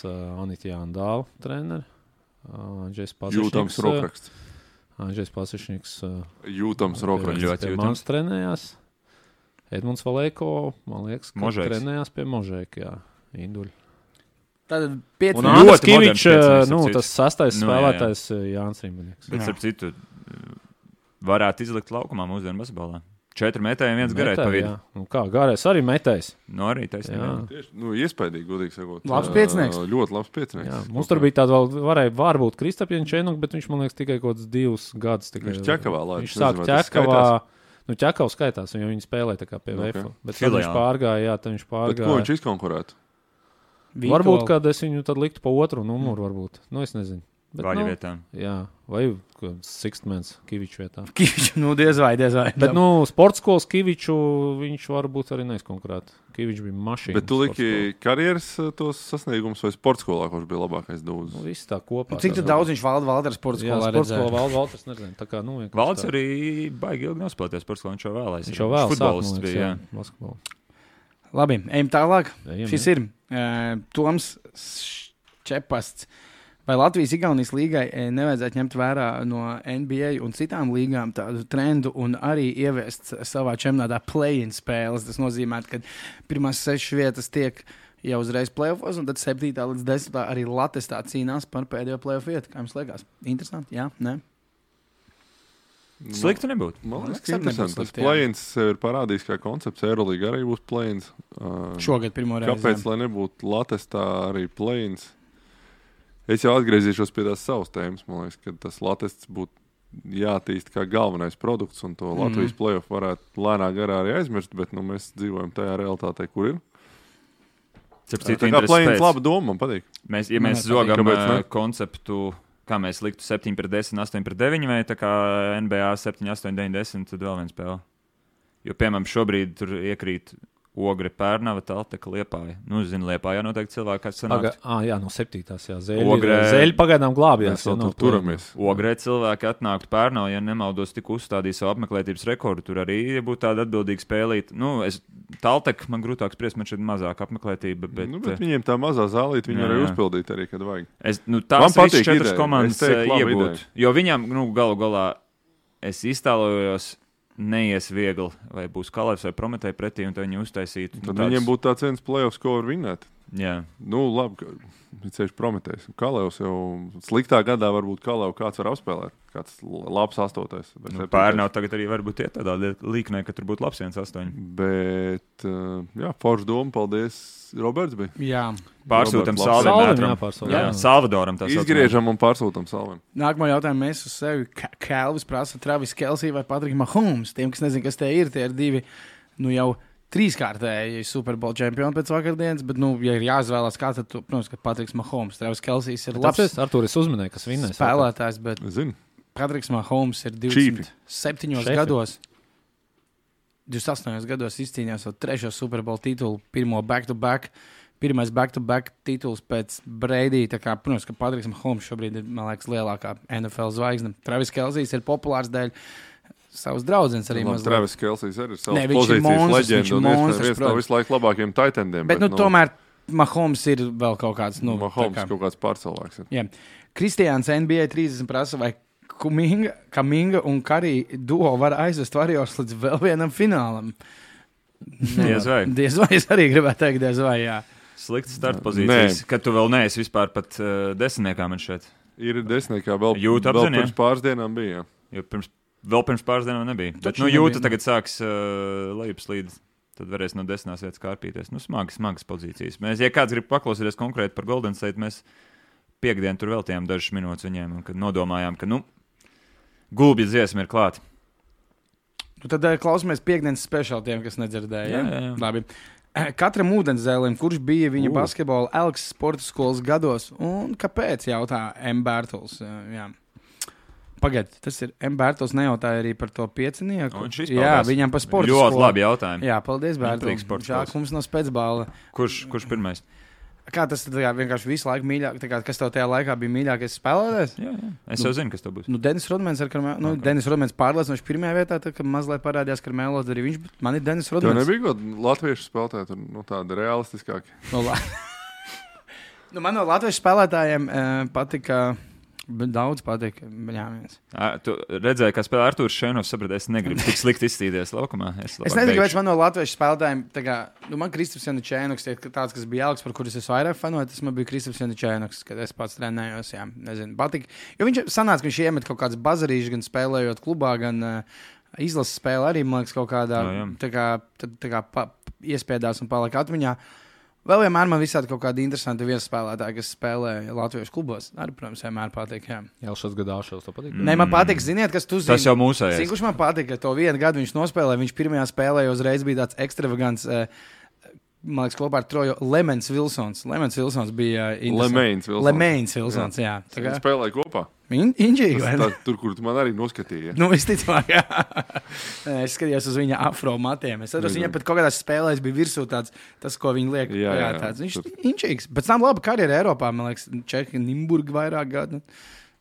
Anita Jāndāla treneri, Andžejs Pasečņiks. Jūtams rokraksts. Andžejs Pasečņiks. Jūtams rokraksts. Ļoti jūtams. Mans trenējās. Edmunds Valēko, man liekas, ka trenējās pie Možēka, jā, Induļa. Tad 5 un Andris Kivičs, tas 6. spēlētājs Jānis Rimbanieks. Bet, starp citu, varētu izlikt laukumā mūsdienu basketbolā. 4 metēji, 1 garai pa vidu. Kā, garais arī metējs. Arī taisnība. Iespaidīgi, godīgi sakot. Labs piecinieks. Ļoti labs piecinieks. Jā, mums tur bija tāda vēl, varbūt Kristapien Čenuk, bet viņš, man liekas, tikai kaut kāds 2 gadus. Viņš Ķekavā laiž. Viņš sāk Ķekavā. Ķekavs skaitās, jo viņi spēlē tā kā pie VF. Bet tad viņš pārgāja, Bet ko viņš izkonkurētu? Varbūt, kad es viņu tad liktu pa otru numuru, varbūt. Es nezinu. Vaļa vietā. Jā, vai Sixtmans Kiviču vietā. Kiviču, diez vai. Bet, sporta skolas Kiviču viņš varbūt arī neizkonkurētu. Kivičs bija mašīna. Bet tu liki karjeras tos sasniegumus vai sporta skolā, kurš bija labākais dūzis? Viss tā kopā. Cik daudz viņš Valders sporta skolā redzēja? Jā, sporta skolā Valders nezinu. Tā kā, Valders arī baigi ilgi nospēlēties sporta skolā, viņš jau vēlēs. Viņš jau vēl futbolists bija, basketbolu. Labi, ejam tālāk. Šis ir Toms Čepasts. Vai Latvijas-Igaunijas līgai nevajadzētu ņemt vērā no NBA un citām līgām tādu trendu un arī ieviest savā čempionātā play-in spēles? Tas nozīmē, ka pirmās 6 vietas tiek jau uzreiz play-offos, un tad 7. līdz 10. arī Latestā cīnās par pēdējo play-off vietu. Kā jums liekas? Interesanti? Jā? Nē? Slikti nebūtu. Man liekas, ka interesanti. Tas play-ins sev ir parādījis kā koncepts. Eurolīga arī būs play-ins. Šogad pirmo reizi. Kāpēc, lai nebūtu Latestā arī play-ins? Es jau atgriezīšos pie tās savas tēmas. Man liekas, ka tas Latests būtu jātīst kā galvenais produkts, un to Latvijas play-off varētu lēnā garā arī aizmirst, bet mēs dzīvojam tajā realitātē, kur ir. Tā kā play-ins laba doma, man patīk. Ja mēs zogam konceptu, kā mēs liktu 7-10, 8-9, vai tā kā NBA 7, 8, 9, 10, tad vēl viens spēle. Jo, piemēram, šobrīd tur iekrīt Ogre, Pērnava, Talteka, Liepāja. Zinu, Liepājā noteikti cilvēki, kas sanākt. Jā, no 7. Zeļi pagaidām glābjās. Turamies. Ogrē cilvēki atnāktu Pērnava, ja nemaldos tik uzstādīja savu apmeklētības rekordu. Tur arī būtu tāda atbildīga spēlīt. Talteka man grūtāk spriest, man šeit mazāk apmeklētība. Bet viņiem tā mazā zālīt, viņi arī uzpildīt arī, kad vajag. Tās visas 4 komandas iegūt. Jo viņām, galu galā, es iztēlojos, neies viegli, vai būs Kalevs vai Prometēja pretī, un tad viņi uztaisītu. Tad viņiem būtu tāds viens play-offs, ko var vinnēt. Jā. Labi, viņš Prometējs. Kalevs jau sliktā gadā varbūt Kalevu kāds var apspēlēt. Kāds labs 8. Pērnau tagad arī varbūt iet tādā līknē, ka tur būtu labs 1-8. Bet, forša doma, paldies, Roberts bija. Jā. Pārsūtam Salvim. Salvadoram tā saucamā. Izgriežam un pārsūtam Salvim. Nākamo jautājumu mēs uz sevi. Kelvis prasa Travis Kelsey vai Patrick Mahomes. Tiem, kas nezin, kas tie ir 2, jau 3-kārtēji Super Bowl čempioni pēc vakardienas, bet, ja ir jāizvēlās kā, tad, protams, ka Patricks Mahomes. Travis Kelsejs ir labs. Artūr, es uzminēju, kas vinnēs. Spēlētājs, bet Patricks Mahomes ir 27 gados. 28 gados izcīnījās savu 3. Super Bowl titulu, pirmais back-to-back tituls pēc Brady. Tā kā, protams, ka Patricks Mahomes šobrīd ir, man liekas, lielākā NFL zvaigzne. Travis Kelsejs ir populārs dēļ savas draudzenes arī mazliet. Travis Kelsejs arī ir savas pozīcijas leģenda un viens no visu laiku labākajiem tight endiem. Bet tomēr Mahomes ir vēl kaut kāds... Mahomes kaut kāds pārcilvēks. Jā. Kristiāns NBA 30 prasa, vai Kaminga un Karī duo var aizvest Warriors līdz vēl vienam finālam. Diez vai. Diez vai, es arī gribētu teikt, diez vai, jā. Slikts start pozīcijas, kad tu vēl neesi vispār pat desmitniekā man šeit. Ir desmitniekā, vēl pirms pāris dienām bija. Jo vēl pirms pāris dienām nebija. Bet Jūta tagad sāks lejupslīd, tad varēs no 10. vietas kārpīties. Smagas pozīcijas. Ja kāds grib paklausīties konkrēti par Golden State, mēs piekdien tur veltījām dažas minūtes viņiem, un kad nodomājām, ka, gulbja dziesma ir klāta. Tad klausamies piekdienas speciāli tiem, kas nedzirdēja. Jā. Labi. Katram ūdenzēlim, kurš bija viņa basketbola Elks sporta skolas gados, un kāpēc, jautā M. Bērtuls. Jā. Pagaid, tas ir M. Bērtuls nejautāja arī par to piecinieku. Jā, viņam par sporta skolu. Ļoti labi jautājumi. Jā, paldies, Bērtuls. Žāk, mums nav spēcbāla. Kurš pirmais? Kā tas vienkārši visu laiku mīļāk, kas tev tajā laikā bija mīļākais spēlētājs? Jā. Es jau zinu, kas tev būs. Denis Rodmans Denis Rodmans pārliecinoši pirmajā vietā, tad, kad mazliet parādījās Karmelo, arī viņš, man ir Denis Rodmans. Tev nebija kaut latviešu spēlētāji, tādi realistiskāki? Man no latviešu spēlētājiem patika... Daudz patīk. Tu redzēji, kā spēlē Artūrs Šēnovs, saprati, es negribu tik slikti izstīties laukumā. Es nezinu, kāpēc man no latviešu spēlētājiem, man Kristaps Janučēnoks, tāds, kas bija Elks, par kurus es vairāk fanoju, tas man bija Kristaps Janučēnoks, kad es pats trenējos, jā, nezinu, patika. Jo viņš sanāca, ka viņš iemet kaut kāds bazarīšs, gan spēlējot klubā, gan izlases spēle arī, man liekas, kaut kādā, tā kā iespiedās un palika atmiņā. Vēl vienmēr man visādi kaut kādi interesanti viesspēlētāji, kas spēlē latviešu klubos. Arī, protams, vienmēr patīk. Jā, šos gadāšos to patīk. Nē, man patīk, ziniet, kas tu zini. Tas jau mūsējais. Zini, kurš man patīk, ka to vienu gadu viņš nospēlēja. Viņš pirmajā spēlē uzreiz bija tāds ekstravagants, man liekas, kopā ar Troju Lemens Vilsons. Lemens Vilsons bija Lemens Vilsons, jā. Viņi spēlēja kopā. Inģīgi, vai ne? Tur, kur tu man arī noskatīji. Visticamāk, jā. Es skatījos uz viņa afro matiem. Es atceros, viņam pat kaut kādās spēlēs bija virsū tāds, tas, ko viņi liek. Jā, tāds. Viņš inģīgs. Pēc tam laba karjera Eiropā, man liekas, Čehi, Nimburga vairāk gadu.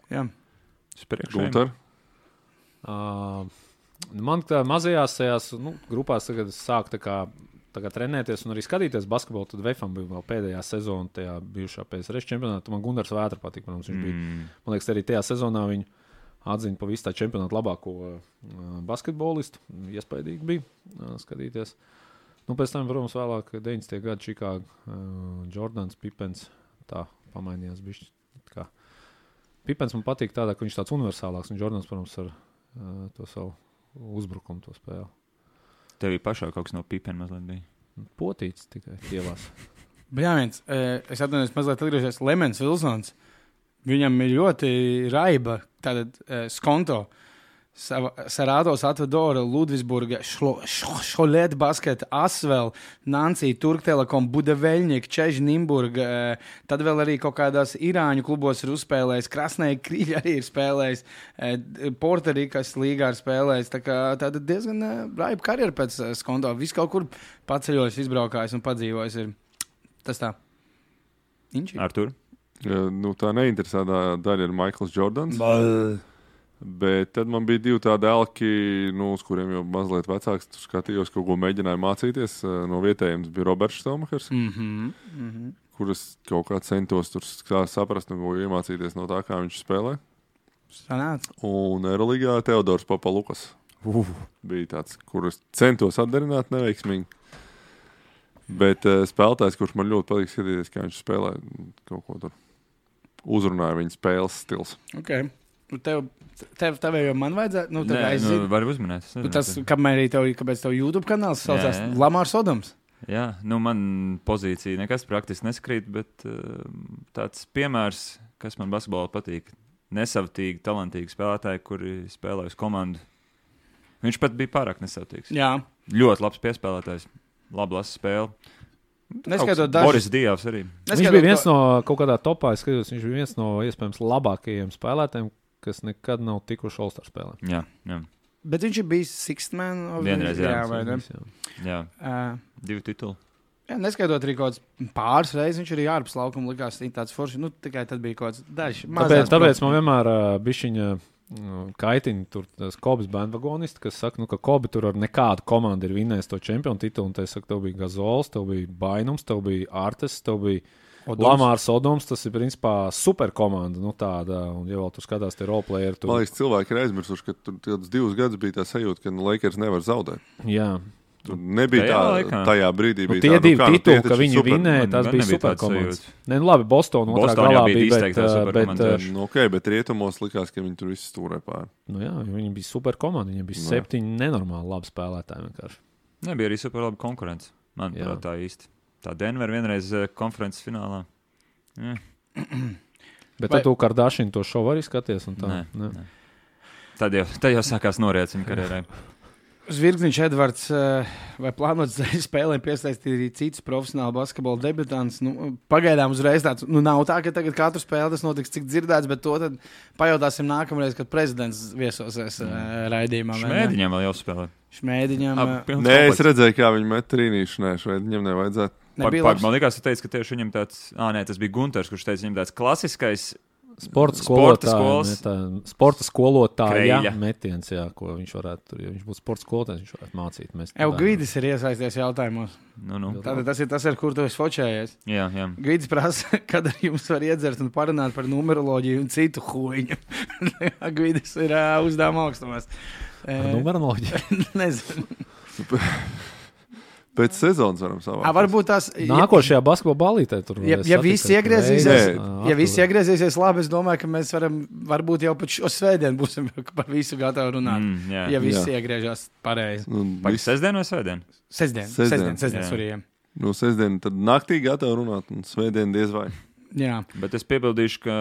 Jā. Gunter? Man tā mazajās tajās grupās tagad sāk tagad trenēties un arī skatīties basketbolu, tad Vefam bija vēl pēdējā sezona, tajā bijušā PSRS čempionātā. Man Gundars Vētra patīk, protams, viņš bija. Man liekas, arī tajā sezonā viņu atzina pa visu tā čempionātu labāko basketbolistu. Iespaidīgi bija skatīties. Pēc tam, protams, vēlāk 90. gadu Čikāga, Jordans, Pipens, tā pamainījās bišķi. Pipens man patīk tādā, ka viņš tāds universālāks, un Jordans, protams, ar to savu uzbrukumu to spēli. Tev pašā kaut kas no Pipena mazliet bija? Potīts tikai ielās. Jā, es atvainojos mazliet atgriežies. Lemens Vilsons, viņam ir ļoti raiba tātad skonto. Sarādos Atvadora, Ludvisburga, Šolēt basketa, Asvel, Nancija, Turktelekom, Budaveļņiek, Čeži, Nimburga, tad vēl arī kaut kādās Irāņu klubos ir uzspēlējis, Krasnēja Krīļa arī ir spēlējis, Portorikas līgā ir spēlējis, tāda diezgan raiba karjera pēc skonto. Viss kaut kur paceļojis, izbraukājis un padzīvojis ir. Tas tā. Artur? Tā neinteresētā daļa ir Maikls Jordans. Bet tad man bija divi tādi elki, uz kuriem jau mazliet vecāks. Tur skatījos, kaut ko mēģināju mācīties. No vietējiem bija Roberts Štelmachers, kuras kaut kā centos tur saprast un iemācīties no tā, kā viņš spēlē. Sanāc. Un Eiroligā Teodors Papalukas bija tāds, kurus centos atdarināt neveiksmīgi. Bet spēlētājs, kurš man ļoti patīk skatīties, kā viņš spēlē, kaut ko tur uzrunāja viņa spēles stils. Okay. Tev jau man vajadzētu, var uzminēt. Tas, kāpēc tev YouTube kanāls saucās Lamārs Odoms? Jā, man pozīcija nekas praktiski neskrīt, bet tāds piemērs, kas man basketbolā patīk, nesavtīgi, talantīgi spēlētāji, kuri spēlē uz komandu. Viņš pat bija pārāk nesavtīgs. Jā. Ļoti labs piespēlētājs, labi lasa spēli. Boris Dievs arī. Viņš bija viens no kaut kādā topā, viņš bija viens no iespējams labākajiem spēlētājiem, kas nekad nav tikuši All-Star spēlē. Jā. Bet viņš ir bijis Sixth Man. Vienreiz, jā. Divi tituli. Jā, neskaitot arī kaut kāds pāris reizes, viņš arī ārpus laukuma likās tāds forši. Tikai tad bija kaut kāds dažs. Tāpēc man vienmēr bišķiņa kaitina tur tas Kobis bandvagonisti, kas saka, ka Kobi tur ar nekādu komandu ir vinnējis to čempionu titulu, un te saka, tev bija Gazols, tev bija Bainums, tev bija Artes, tev bija Lamārs Odoms, tas ir principā super komanda, tāda, un ja vēl tu skatās tie roleplayeri. Man liekas, cilvēki ir aizmirsuši, ka tur 2 gadus bija tā sajūta, ka Lakers nevar zaudēt. Jā. Tur nebija tajā brīdī. Tie divi tituli, ka viņi vinnēja, tas bija super komandas. Labi, Boston otrā galā bija, bet rietumos likās, ka viņi tur visi stūrē pāri. Jā, viņi bija super komanda, viņiem bija 7 nenormāli labi spēlētāji vienkārši. Nebija arī super labi konkurence, manuprāt, tā īsti. Tā Denver vienreiz konferences finālā. Jā. Bet tad tu Kardashian to šovu arī skaties? Un tā? Nē. Tad jau sākās noriec viņa karjerai. Zvirgzniņš Edvards vai plānot spēlēm piesaistīt arī citus profesionālu basketbola debutantus. Pagaidām uzreiz tāds, nav tā, ka tagad katru spēli tas notiks, cik dzirdēts, bet to tad pajautāsim nākamreiz, kad prezidents viesosies raidījumā. Šmēdiņam vēl jāspēlē. Šmēdiņam. Nē, es redzēju, kā viņi met trīnīšu. Nē, Šmēdiņam nevajadzētu. Man liekas, tu teici, ka tieši viņam tāds, tas bija Gunters, kurš teica, viņam tāds klasiskais sporta skolotāja metiens, jā, ko viņš varētu tur, ja viņš būtu sporta skolotājs, viņš varētu mācīt. Gvidis ir iesaisties jautājumos. Tātad tas ir, kur tu esi fočējies. Jā. Gvidis prasa, kad jums var iedzert un parunāt par numeroloģiju un citu huiņu. Gvidis ir uzdevuma augstumās. Par numeroloģiju? Nezinu. Pēc sezonas varam savākt. Varbūt tās nākošajā basketbola ballītē tur ja visi iegriezīsies labi, es domāju, ka mēs varam varbūt jau pat šo svētdienu būsim par visu gatavi runāt. Ja visi iegriežās pareizi. Pēc sestdien vai svētdien? Sestdien, sorry. Sestdien tad naktī gatavi runāt un svētdien diez vai. Jā. Bet es piebildīšu, ka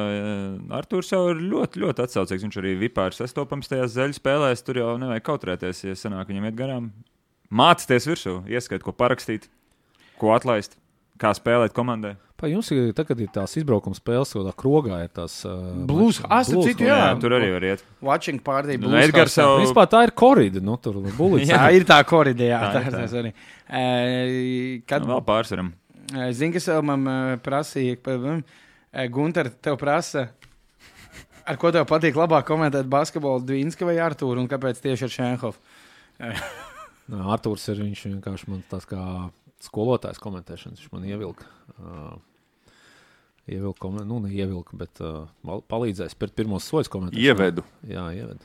Artūrs jau ir ļoti, ļoti atsaucīgs. Viņš arī vipā ir sastopams tajās zeļu spēlēs. Tur jau nevajag kautrēties, ja sanāk viņam iet garām. Mācīties virsū, ieskait, ko parakstīt, ko atlaist, kā spēlēt komandai. Jums ir tagad ir tās izbraukuma spēles, ko tā krogā ir tās... Blues, jā. Tur arī var iet. Watching party, Blues. Edgars jau... Vispār tā ir korida, tur bulica. Jā, ir tā korida, jā. Tā arī. Vēl pārsvaram. Zini, kas vēl man prasīja, Gunter, tev prasa, ar ko tev patīk labāk komentēt basketbolu, Dvinska vai Artūru, un kāpēc tieši ar Šenhofu? Artūrs ir viņš vienkārši man tāds kā skolotājs komentēšanas. Viņš man ievilka. Neievilka, bet palīdzēja spērt pirmos soļus komentēšanas. Ievedu. Jā, ievedu.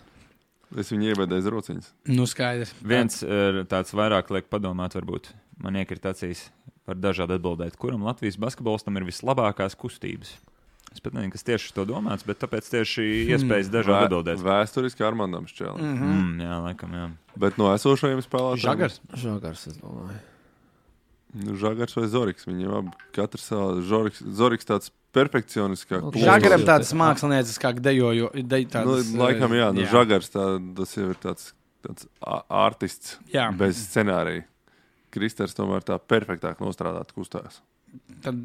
Es viņu ievedu aiz rociņas. Skaidrs. Viens tāds vairāk liek padomāt, varbūt man iekrīt acīs par dažādu atbildēt, kuram Latvijas basketbolistam ir vislabākās kustības. Es pat nezinu, kas tieši to domāts, bet tāpēc tieši iespējas dažādi atbildēt. Vēsturiski Armandam Šķēlim. Jā, laikam, jā. Bet no esošajiem spēlētājiem? Žagars, es domāju. Žagars vai Zoriks? Viņam abi katrs savā. Zoriks tāds perfekcioniskāk. Žagaram tāds mākslinieckāk dejojo. Laikam, jā. Žagars tas jau ir tāds artists bez scenārija. Kristers tomēr tā perfektāk nostrādāt kustās. Tad,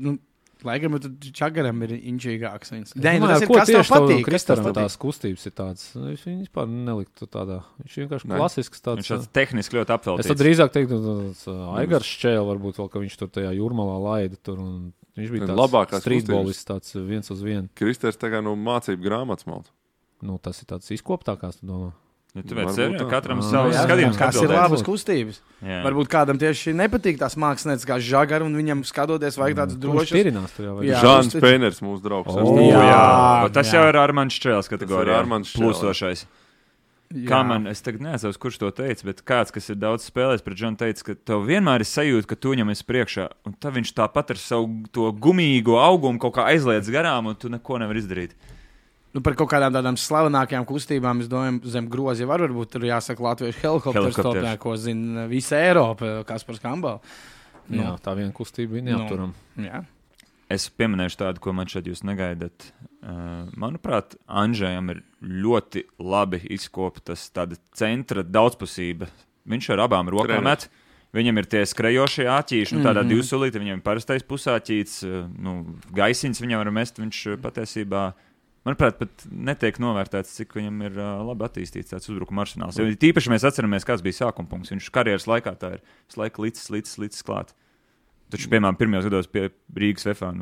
laikam, Čagaram ir inčīgāks. Tas ir, kas tev patīk. Kristaram tās kustības ir tādas. Viņš vispār neliktu tādā. Viņš vienkārši klasisks tāds. Viņš tāds tehniski ļoti apveltīts. Es tad drīzāk teiktu, Aigars Šķēl varbūt vēl, ka viņš tur tajā jūrmalā laida tur. Un viņš bija tāds streetballists, tāds 1-1. Kristers tagad no mācību grāmatas malta. Tas ir tāds izkoptākās, tu domā. Tu vērts katram savu skatījumu. Kas ir labas kustības. Jā. Varbūt kādam tieši nepatīk tās mākslinieces kā Žagara, un viņam skatoties vajag tāds drošs. Žāns Pēners, mūsu draugs. Tas jau ir Armands Šķēls kategorijā. Plūstošais. Kā man, es tagad neatceros, kurš to teica, bet kāds, kas ir daudz spēlējis pret Džonu, teica, ka tev vienmēr ir sajūta, ka tu viņam esi priekšā, un tad viņš tāpat ar savu to gumīgo augumu kaut kā aizliedz garām, un tu neko nevar izdarīt. Par kaut kādām tādām slavenākajām kustībām, es domāju, zem grozi varbūt tur jāsaka latviešu helikopters topē, ko zina visa Eiropa, Kaspars Kambal. Jā, tā viena kustība bija neapturam. Jā. Es pieminēšu tādu, ko man šeit jūs negaidat. Manuprāt, Andžejam ir ļoti labi izkoptas tāda centra daudzpusība. Viņš ar abām rokām met. Viņam ir tie skrejošie āķīši, tādā divsulīti, viņam ir parastais pusāķīts, gaisiņas viņam var mest, viņš patiesībā... Manuprāt, pat netiek novērtēts, cik viņam ir labi attīstīts tāds uzbrukuma arsenāls. Jo tīpaši mēs atceramies, kāds bija sākuma punkts. Viņš karjeras laikā tā ir visu laiku līdz klāt. Taču, piemēram, pirmajos gados pie Rīgas VFA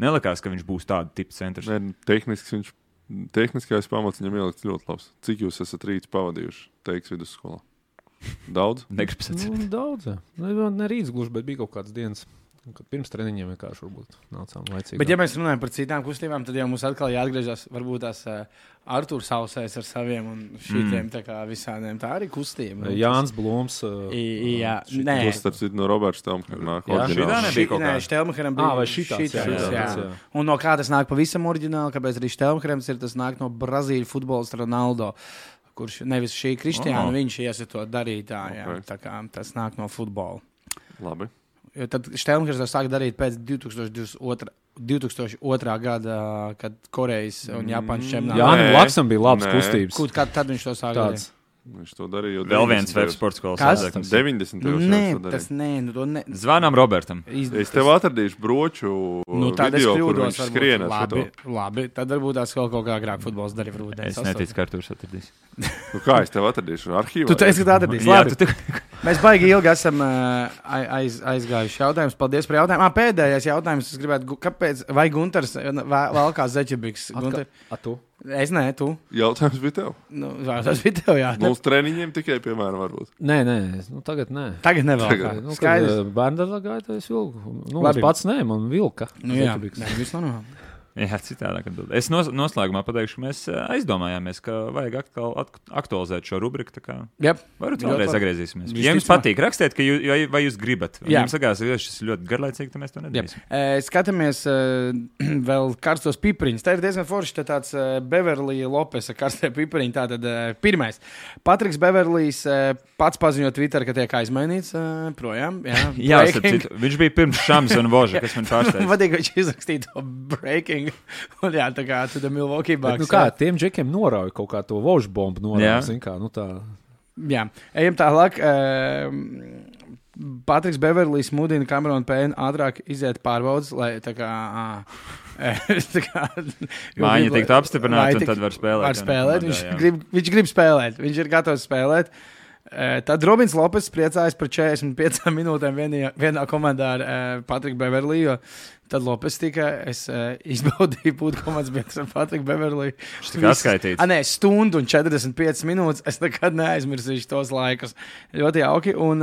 nelikās, ka viņš būs tāda tipa centrs. Tehniskais pamats viņam ielikts ļoti labs. Cik jūs esat rīts pavadījuši Teiks vidusskolā? Daudz? Negribas atcerēt. Daudz, jā. Ne rīts gluži, bet bija kaut kādas dienas. Kad pirms treniņiem vienkārši varbūt nācām laicīgi. Bet ja mēs runājam par citām kustībām, tad jau mums atkal jāatgriežas varbūt tās Artūrs Sausais ar saviem un šitiem tā kā visādiem. Tā arī kustība. Jānis Blūms. Jā, nē. Tas starp citu no Roberts Štelmkera nāk. Šitā nebija kaut kā. Nē, Štelmkeram bija. Vai šitāds, jā. Un no kā tas nāk pavisam oriģināli, kāpēc arī Štelmkerams ir, tas nāk no Brazīļu futbolista Ronaldo, kurš nevis šī Kristiāna, viņš iesa to darīt. Tā kā tas nāk no futbola. Labi. Tad Štelmkers to sāka darīt pēc 2002. Gada, kad Korejas un Japānas čempionātā. Jānim Laksam bija labas kustības. Kad viņš to sāka darīt? Viņš to darīja jau Vēl viens web sports skolas sākums. 90. Nē, tas nē. Zvanām Robertam. Es tev atradīšu broču video, kur viņš skrienās. Labi, tad varbūt tās kaut kā agrāk futbols darīja rūdē. Es neticu, ka Artūrs atradīs. Kā es tev atradīšu? Arhīvā? Tu teici, ka atradīs. Labi. Mēs baigi ilgi esam aizgājuši jautājumus. Paldies par jautājumu. Pēdējais jautājums. Es gribētu, kāpēc, vai Gunters valkā zeķebiks? Tu? Es nē, tu. Jautājums bija tev. Tas bija tev, jā. Mums treniņiem tikai, piemēram, varbūt. Nē, Tagad nē. Tagad nevēl. Skaidrs. Bērndarā gāja, es vilku. Es pats nē, man vilka. Jā, viss normāli. Jā, citādāk. Es noslēgumā pateikšu, ka mēs aizdomājāmies, ka vajag atkal aktualizēt šo rubriku. Varbūt vēlreiz atgriezīsimies. Ja jums patīk, rakstiet, vai jūs gribat. Ja jums sakās, ka šis ir ļoti garlaicīgi, tad mēs to nedarīsim. Skatāmies vēl karstos pipariņus. Tā ir diezgan forši tāds Beverly Lopesa karstie pipariņi. Tātad pirmais. Patriks Beverlijs pats paziņo Twitter, ka tiek aizmainīts projām. Jā, viņš bija pirms Šams un Voža, kas man pārsteidz. Vadīgi, viņš izrakstīja to breaking. Un jā, tā kā tu Milwaukee Bucks. Kā tiem džekiem norauja kaut kā to vožu bombu norauja, zin kā, tā. Jā, ejam tālāk. Patriks Beverlijs mudina Cameronu Payne ātrāk iziet pārbaudas, lai tā kā... Mājiņa tiktu apstiprināta, un tad var spēlēt. Viņš grib spēlēt, viņš ir gatavs spēlēt. Tad Robins Lopes priecājas par 45 minūtēm vienā komandā ar Patriku Beverliju. Tad Lopes es izbaudīju būt komandas biedrs ar Patriku Beverliju. Viņš tika atskaitīts. Nē, stundu un 45 minūtes. Es nekad neaizmirsīšu tos laikus. Ļoti jauki. Un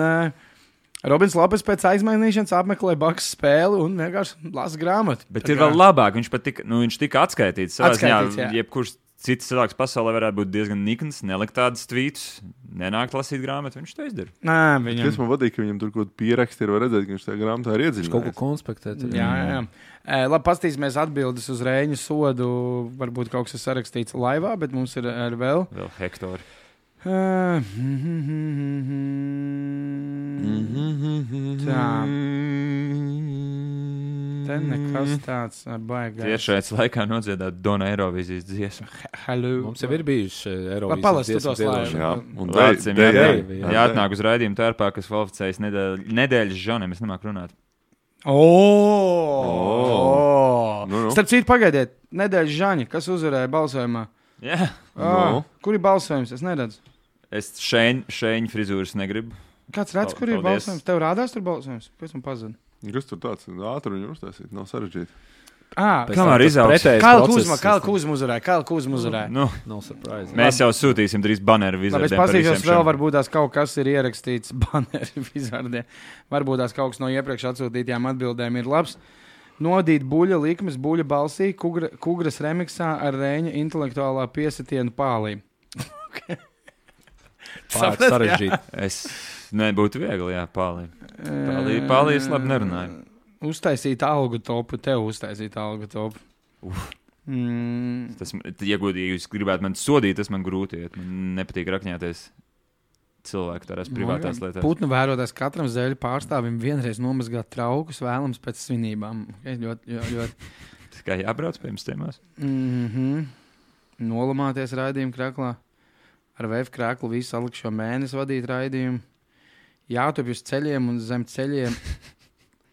Robins Lopes pēc aizmainīšanas apmeklē Bucks spēli un vienkārši lasa grāmatu. Bet ir vēl labāk. Viņš tika atskaitīts. Jebkurš cits cilvēks pasaulē varētu būt diezgan nikns, nelikt tādas tvītus, nenākt lasīt grāmatu. Viņš to izdara. Es man vadīju, ka viņam tur kaut ko pieraksti ir, var redzēt, ka viņš tajā grāmatā ir iedziļinājies. Kaut ko konspektēt. Jā. Labi, paskatīsimies atbildes uz Reiņu sodu. Varbūt kaut kas ir sarakstīts laivā, bet mums ir vēl Hektori. Tā. Te nekas tāds baigās. Tiešais laikā nodziedāt Dona Eirovīzijas dziesmu. Hello. Mums jau ir bijuši Eirovīzijas dziesmu. Jāatnāk uz raidījumu tērpā, kas kvalificējas nedēļas žaniem. Es nemāku runāt. Starp citu, pagaidiet, nedēļas žaņi, kas uzvarēja balsojumā? Jā. Kur ir balsojums? Es neredzu. Es šēņu frizūras negribu. Kāds redz, kur ir balsojums? Tev rādās tur balsojums? Pēc man pazina. Kas tur tāds ātri viņu uztaisīt? Nav sarežģīti. Kamēr izaugs. Kāla Kuzma uzvarēja. No surprise. Mēs jau sūtīsim 3 baneru vizardiem. Es pasīšos vēl, varbūt tās kaut kas ir ierakstīts baneru vizardiem. Varbūt tās kaut kas no iepriekš atsūtītajām atbildēm ir labs. Nodīt buļa likmes, buļa balsī, Kugras remiksā ar Reiņa intelektuālā piesitienu pālī. Sarežģīti. Es nebūtu viegli, jā, pālī. Pālī es labi nerunāju. Uztaisīt algu topu, tev uztaisīt algu topu. Tas, ja jūs gribētu man sodīt, tas man grūti iet. Man nepatīk rakņāties cilvēku tādās privātās lietās. Putnu vērotās katram zēļu pārstāvim vienreiz nomazgāt traukus vēlams pēc svinībām. Ļoti. Tas kā jābrauc pie jums tēmās? Nolamāties raidījumu krāklā. Ar VF krāklu visu salikšo mēnesi vadīt raidījumu. Jātup uz ceļiem un zem ceļiem.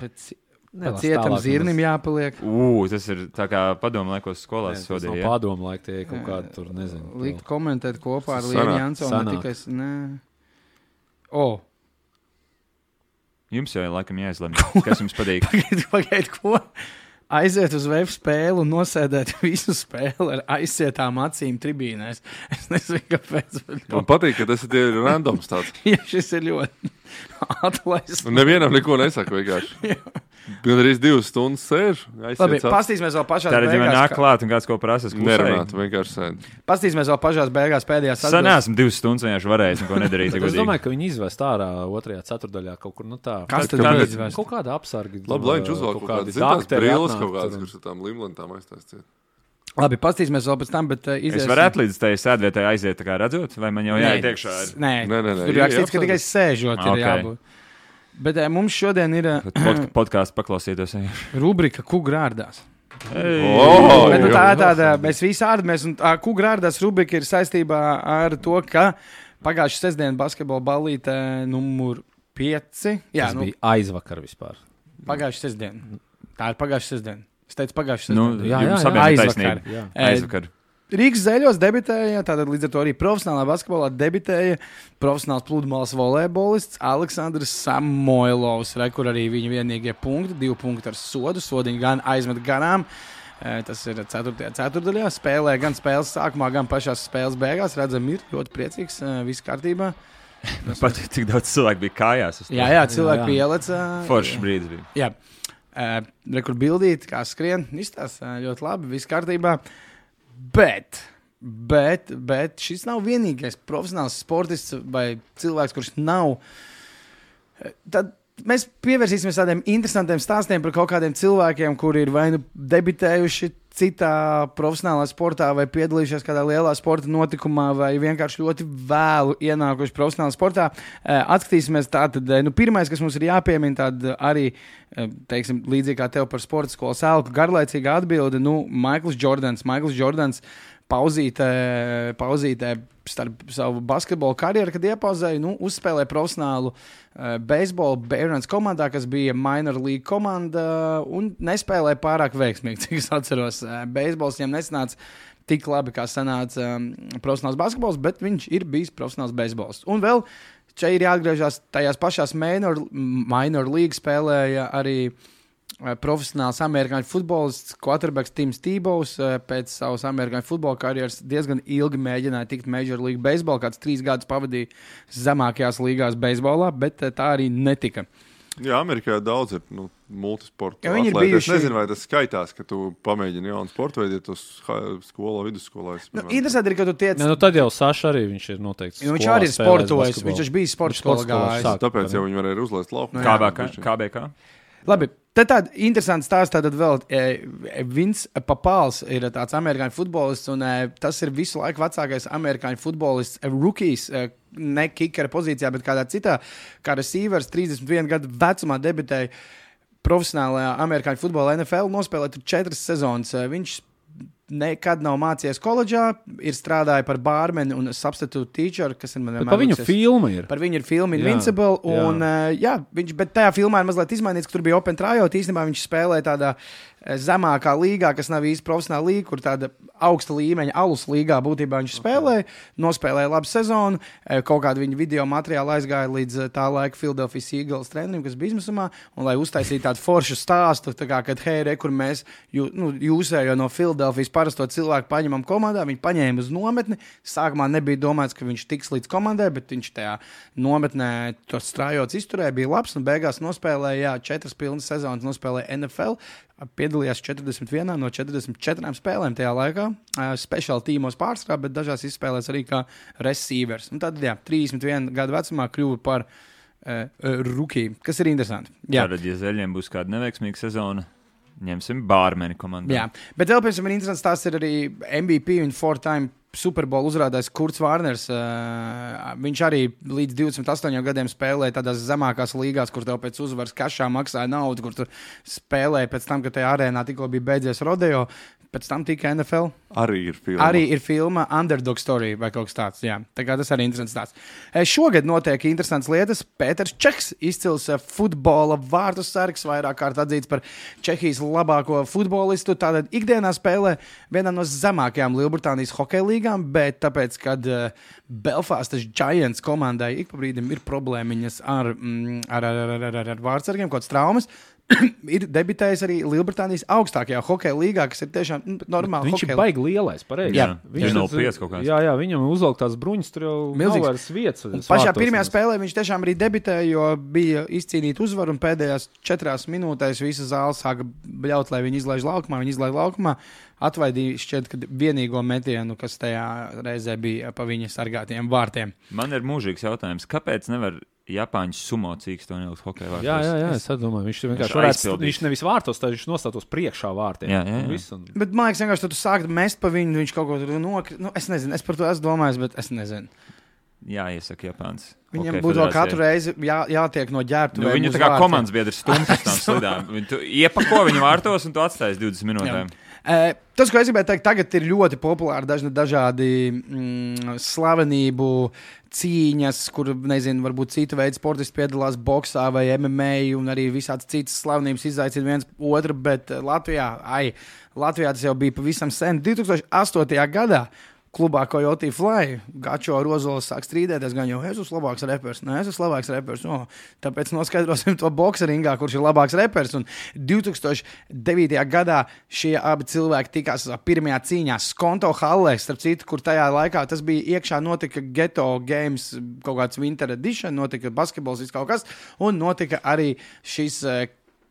Pēc cietam zirnim jāpaliek. Tas ir tā kā padomu laikos skolās sodīja. Tas nav padomu laik, tie kaut kādi tur, nezinu. Likt komentēt kopā ar Lienu Jansonu. Jums jau laikam jāizlemj, kas jums patīk. Pagaid, ko? Aiziet uz VF spēli un nosēdēt visu spēli ar aizsietām acīm tribīnēs. Es nezinu, kāpēc. Man patīk, ka tas ir randoms tāds. Jā, šis ir ļoti atlaists. Un nevienam neko nesaka vienkārši. Gan arī 2 stundas sēž. Labi, pastīsimies vēl pašās beigās. Tātad, ja man nāk klāt un kāds ko prasas, nerunāt, vienkārši sēd. Pastīsimies vēl pašās beigās pēdējās atbildes. Sanāsim 2 stundas vienkārši varējis un ko nedarīt. Es domāju, ka viņi izvest ārā 2. ceturdaļā kaut kur, tā. Kas tad izvest? Kaut kāda apsargi. Lai viņš uzvalk kaut kādas zintās brīles kaut kādas, kurš ar tām limlentām aiztaisciet. Labi, pastīsimies vēl pēc tam, bet Es varētu līdz tai sēdvietai aiziet, tā kā redzot, vai man jau jāiet iekšā? Nē. Tur rakstīts, ka tikai sēžot ir jābūt. Bet mums šodien ir podkāsts paklausītos. Rubrika Kugrārdās. Tā ir tāda, mēs visi ārdamies, un Kugrārdās rubrika ir saistībā ar to, ka Pagājušā sestdiena basketbola ballīte numur 5. Jā, Tas bija aizvakar vispār. Pagājušā sestdiena. Tā ir pagājušā sestdiena. Es teicu pagājušā sestdiena. Jums abiem ir taisnība. Aizvakar. Rīgas Zeļos debitēja, tātad līdz ar to arī profesionālā basketbolā debitēja profesionāls pludmales volejbolists Aleksandrs Samoilovs, kur arī viņa vienīgie punkti, 2 punkti ar sodu, sodiņu gan aizmet garām. Tas ir 4. ceturtdaļā, spēlē gan spēles sākumā, gan pašās spēles beigās. Redzam, ir ļoti priecīgs, viss kārtībā. Pat cik daudz cilvēku bija kājās. Jā, cilvēki pielec. Foršs brīdis bija. Jā, rekur bildīt, kā skrien, izstāsta ļoti labi, viss kārtībā. Bet šis nav vienīgais profesionāls sportists vai cilvēks, kurš nav. Tad mēs pievērsīsimies tādiem interesantiem stāstiem par kaut kādiem cilvēkiem, kuri ir vai nu debitējuši citā profesionālā sportā, vai piedalījušies kādā lielā sporta notikumā, vai vienkārši ļoti vēlu ienākuši profesionālā sportā. Atskatīsimies tātad, pirmais, kas mums ir jāpiemina, tad arī, teiksim, līdzīgi kā tev par sporta skolas elku, garlaicīga atbilde, Maikls Jordans pauzītē starp savu basketbolu karjeru, kad iepauzēja, uzspēlēja profesionālu beisbolu Barons komandā, kas bija minor league komanda, un nespēlēja pārāk veiksmīgi, cik es atceros. Beisbols viņam nesanāca tik labi, kā sanāca profesionāls basketbols, bet viņš ir bijis profesionāls beisbols. Un vēl šeit ir jāatgriežas tajās pašās minor league spēlēja arī profesionāls amerikāņu futbolists, quarterbacks Tims Tebows pēc savas amerikāņu futbola karjeras diezgan ilgi mēģināja tikt Major League Baseball, kāds 3 gadus pavadīja zemākajās līgās beisbolā, bet tā arī netika. Jā, Amerikā daudz ir multisportu atlēti. Bijuši... Es nezinu, vai tas skaitās, ka tu pamēģini jaunu sportu veidu, ja tu skolā, vidusskolā. Interesanti ir, ka tu tiec... Tad jau Saša arī viņš ir noteikti skolā. Viņš arī ir sportojis, viņš bija sporta skolā gājis. Tāpēc jau viņi varēja uzlaist lauku. KBK. Labi, tad tāda interesanta stāsta, tad vēl Vince Papals ir tāds amerikāņu futbolists, un tas ir visu laiku vecākais amerikāņu futbolists, rookies, ne kikera pozīcijā, bet kādā citā, kā receivers, 31 gadu vecumā debitēja profesionālajā amerikāņu futbolā NFL, nospēlēja 4 sezonas. Viņš nekad nav mācījies koledžā, ir strādājis par bārmeni un substitute teacher, kas ir man vienmēr. Par viņu filma ir. Par viņu ir filma Invincible, un bet tajā filmā ir mazliet izmainīts, ka tur bija open tryout, īstenībā viņš spēlēja tādā zemākā līgā, kas nav īsti profesionāla līga, kur tāda augsta līmeņa alus līgā būtībā viņš spēlēja, nospēlēja labu sezonu, kaut kādu viņa video materiālu aizgāja līdz tā laika Philadelphia Eagles trenerim, kas bija izmisumā, un lai uztaisītu tādu foršu stāstu, tā kā, kad hei, kur mēs jūsējo no Philadelphias parasto cilvēku paņemam komandā, viņi paņēma uz nometni, sākumā nebija domāts, ka viņš tiks līdz komandai, bet viņš tajā nometnē tos strājots izturēja, bija labs, un beigās nospēlēja, 4 pilnas sezonas nospēlēja NFL, piedalījās 41 no 44 spēlēm tajā laikā. Speciāli tīmos pārstrā, bet dažās izspēlēs arī kā receivers. Un tad, 31 gadu vecumā kļuva par rookie, kas ir interesanti. Tātad, ja Zeļiem būs kāda neveiksmīga sezona, ņemsim bārmeni komandā. Jā, bet vēl pirms ir interesants tās ir arī MVP un 4-time Super Bowl uzrādājis Kurts Vārners. Viņš arī līdz 28 gadiem spēlēja tādās zemākās līgās, kur tev pēc uzvaras kašā maksāja naudu, kur tu spēlēji pēc tam, kad tajā arēnā tikko bija beidzies rodeo. Pēc tam tika NFL. Arī ir filma Underdog Story vai kaut kas tāds. Jā. Tā kā tas arī interesants stāsts. Šogad notiek interesants lietas. Pēters Čeks, izcils futbola vārtu sargs, vairāk kārt atzīts par Čehijas labāko futbolistu. Tātad ikdienā spēlē vienā no zemākajām Lielbritānijas hokeja līgām, bet tāpēc, kad Belfastas Giants komandai ik pa brīdim ir problēmiņas ar vārdsargiem, kaut kāds traumas, ir debitējis arī Lielbritānijas augstākajā hokeja līgā, kas ir tiešām normāli. Viņš ir baigi lielais, pareizi. Jā, viņš ir 05 kaut kāds. Jā, viņam uzvelk tās bruņas, tur jau nav vairs vietas. Pašā pirmajā spēlē viņš tiešām arī debitēja, jo bija izcīnīta uzvaru, un pēdējās 4 minūtēs visa zāle sāka bļaut, lai viņi izlaiž laukumā. Atvaidīja šķiet, ka vienīgo metienu, kas tajā reizē bija pa viņa sargātiem vārtiem. Man ir mūžīgs jautājums, kāpēc nevar Japāņu sumo cīkstu un ielikt hokeja vārtos? Jā, es domāju, viņš vienkārši varētu, viņš nevis vārtos, tad viņš nostātos priekšā vārtiem. Jā. Bet man liekas, vienkārši tu sākt mest pa viņu, viņš kaut ko tur nokrit. Es nezinu, es par to esmu domājis, bet es nezinu. jāiesaka Japāns. Viņam būtu vēl katru reizi jātiek no ģērbtuvēm. Viņu tā kā komandas biedrs stumts uz tām slidām. Tu iepako viņu vārtos un tu atstājies 20 minūtēm. Tas, ko es gribēju teikt, tagad ir ļoti populāri dažādi slavenību cīņas, kur, nezinu, varbūt cita veida sportisti piedalās boksā vai MMA un arī visādas citas slavenības izaicina viens otru, bet Latvijā tas jau bija pavisam sen. 2008. gadā klubā Coyote Fly Gačo Rozols sāk strīdēties, gan jau es esmu labāks repers, ne, es esmu labāks repers, tāpēc noskaidrosim to bokseringā, kurš ir labāks repers, un 2009. gadā šie abi cilvēki tikās pirmajā cīņā Skonto hallē, starp citu, kur tajā laikā tas bija iekšā, notika Ghetto Games, kaut kāds Winter Edition, notika basketbols, viss kaut kas, un notika arī šī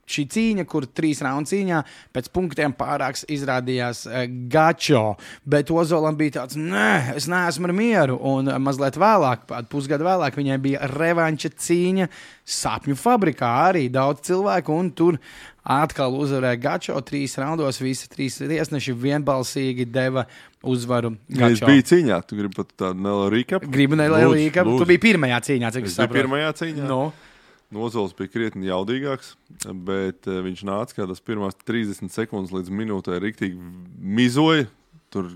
cīņa, kur 3 raundu cīņā pēc punktiem pārāks izrādījās Gačo, bet Ozolam bija tāds, nē, es neesmu ar mieru, un mazliet vēlāk, pusgadu vēlāk, viņai bija revanša cīņa Sapņu fabrikā, arī daudz cilvēku, un tur atkal uzvarēja Gačo 3 raundos, visi 3 tiesneši vienbalsīgi deva uzvaru Gačo. Es biju cīņā, tu gribi pat tādu nelielu recap? Gribu nelielu recap, tu biji pirmajā cīņā, cik es saprotu. Pirmajā cīņā? Ozols bija krietni jaudīgāks, bet viņš nāca kādās pirmās 30 sekundes līdz minūtē riktīgi mizoja. Tur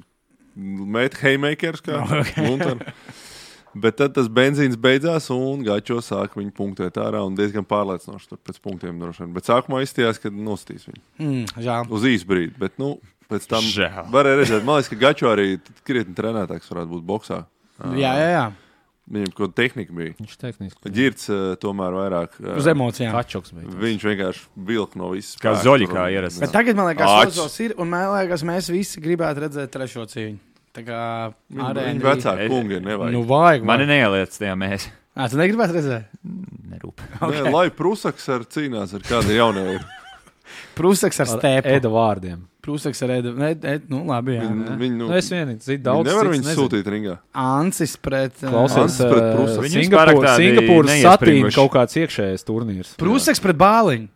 met haymakers kā Lunter. Bet tad tas benzīns beidzās un Gačo sāka viņu punktēt ārā un diezgan pārliecinoši tur pēc punktiem droši vien. Bet sākumā izstījās, ka nostīs viņu. Žēl. Uz īsu brīdi, bet pēc tam varēja redzēt. Man liekas, ka Gačo arī krietni trenētāks varētu būt boksā. Jā. Viņam kaut tehnika bija. Viņš tehniski. Ģirds tomēr vairāk. Uz emocijām. Kačoks bija. Viņš vienkārši vilk no visas. Kā Zoļikā ierastas. Bet tagad, man liekas, Ozols ir, un man liekas, mēs visi gribētu redzēt trešo cīņu. Tā kā Viņa vecāki kungi ir nevajag. Vajag. Mani neieliec tajā mēs. Tu negribētu redzēt? Nerūp. Okay. Lai Prusaks cīnās ar kādu jaunieju. Prusaks ar stēpu. Eda vārdiem. Prusaks ar Edu. Labi, jā. Es vienīgi zinu daudz. Nevar viņu sūtīt ringā. Ancis pret... Klausies, pret Prusaks. Singapūras satīna kaut kāds iekšējais turnīrs. Prusaks pret Bāliņu.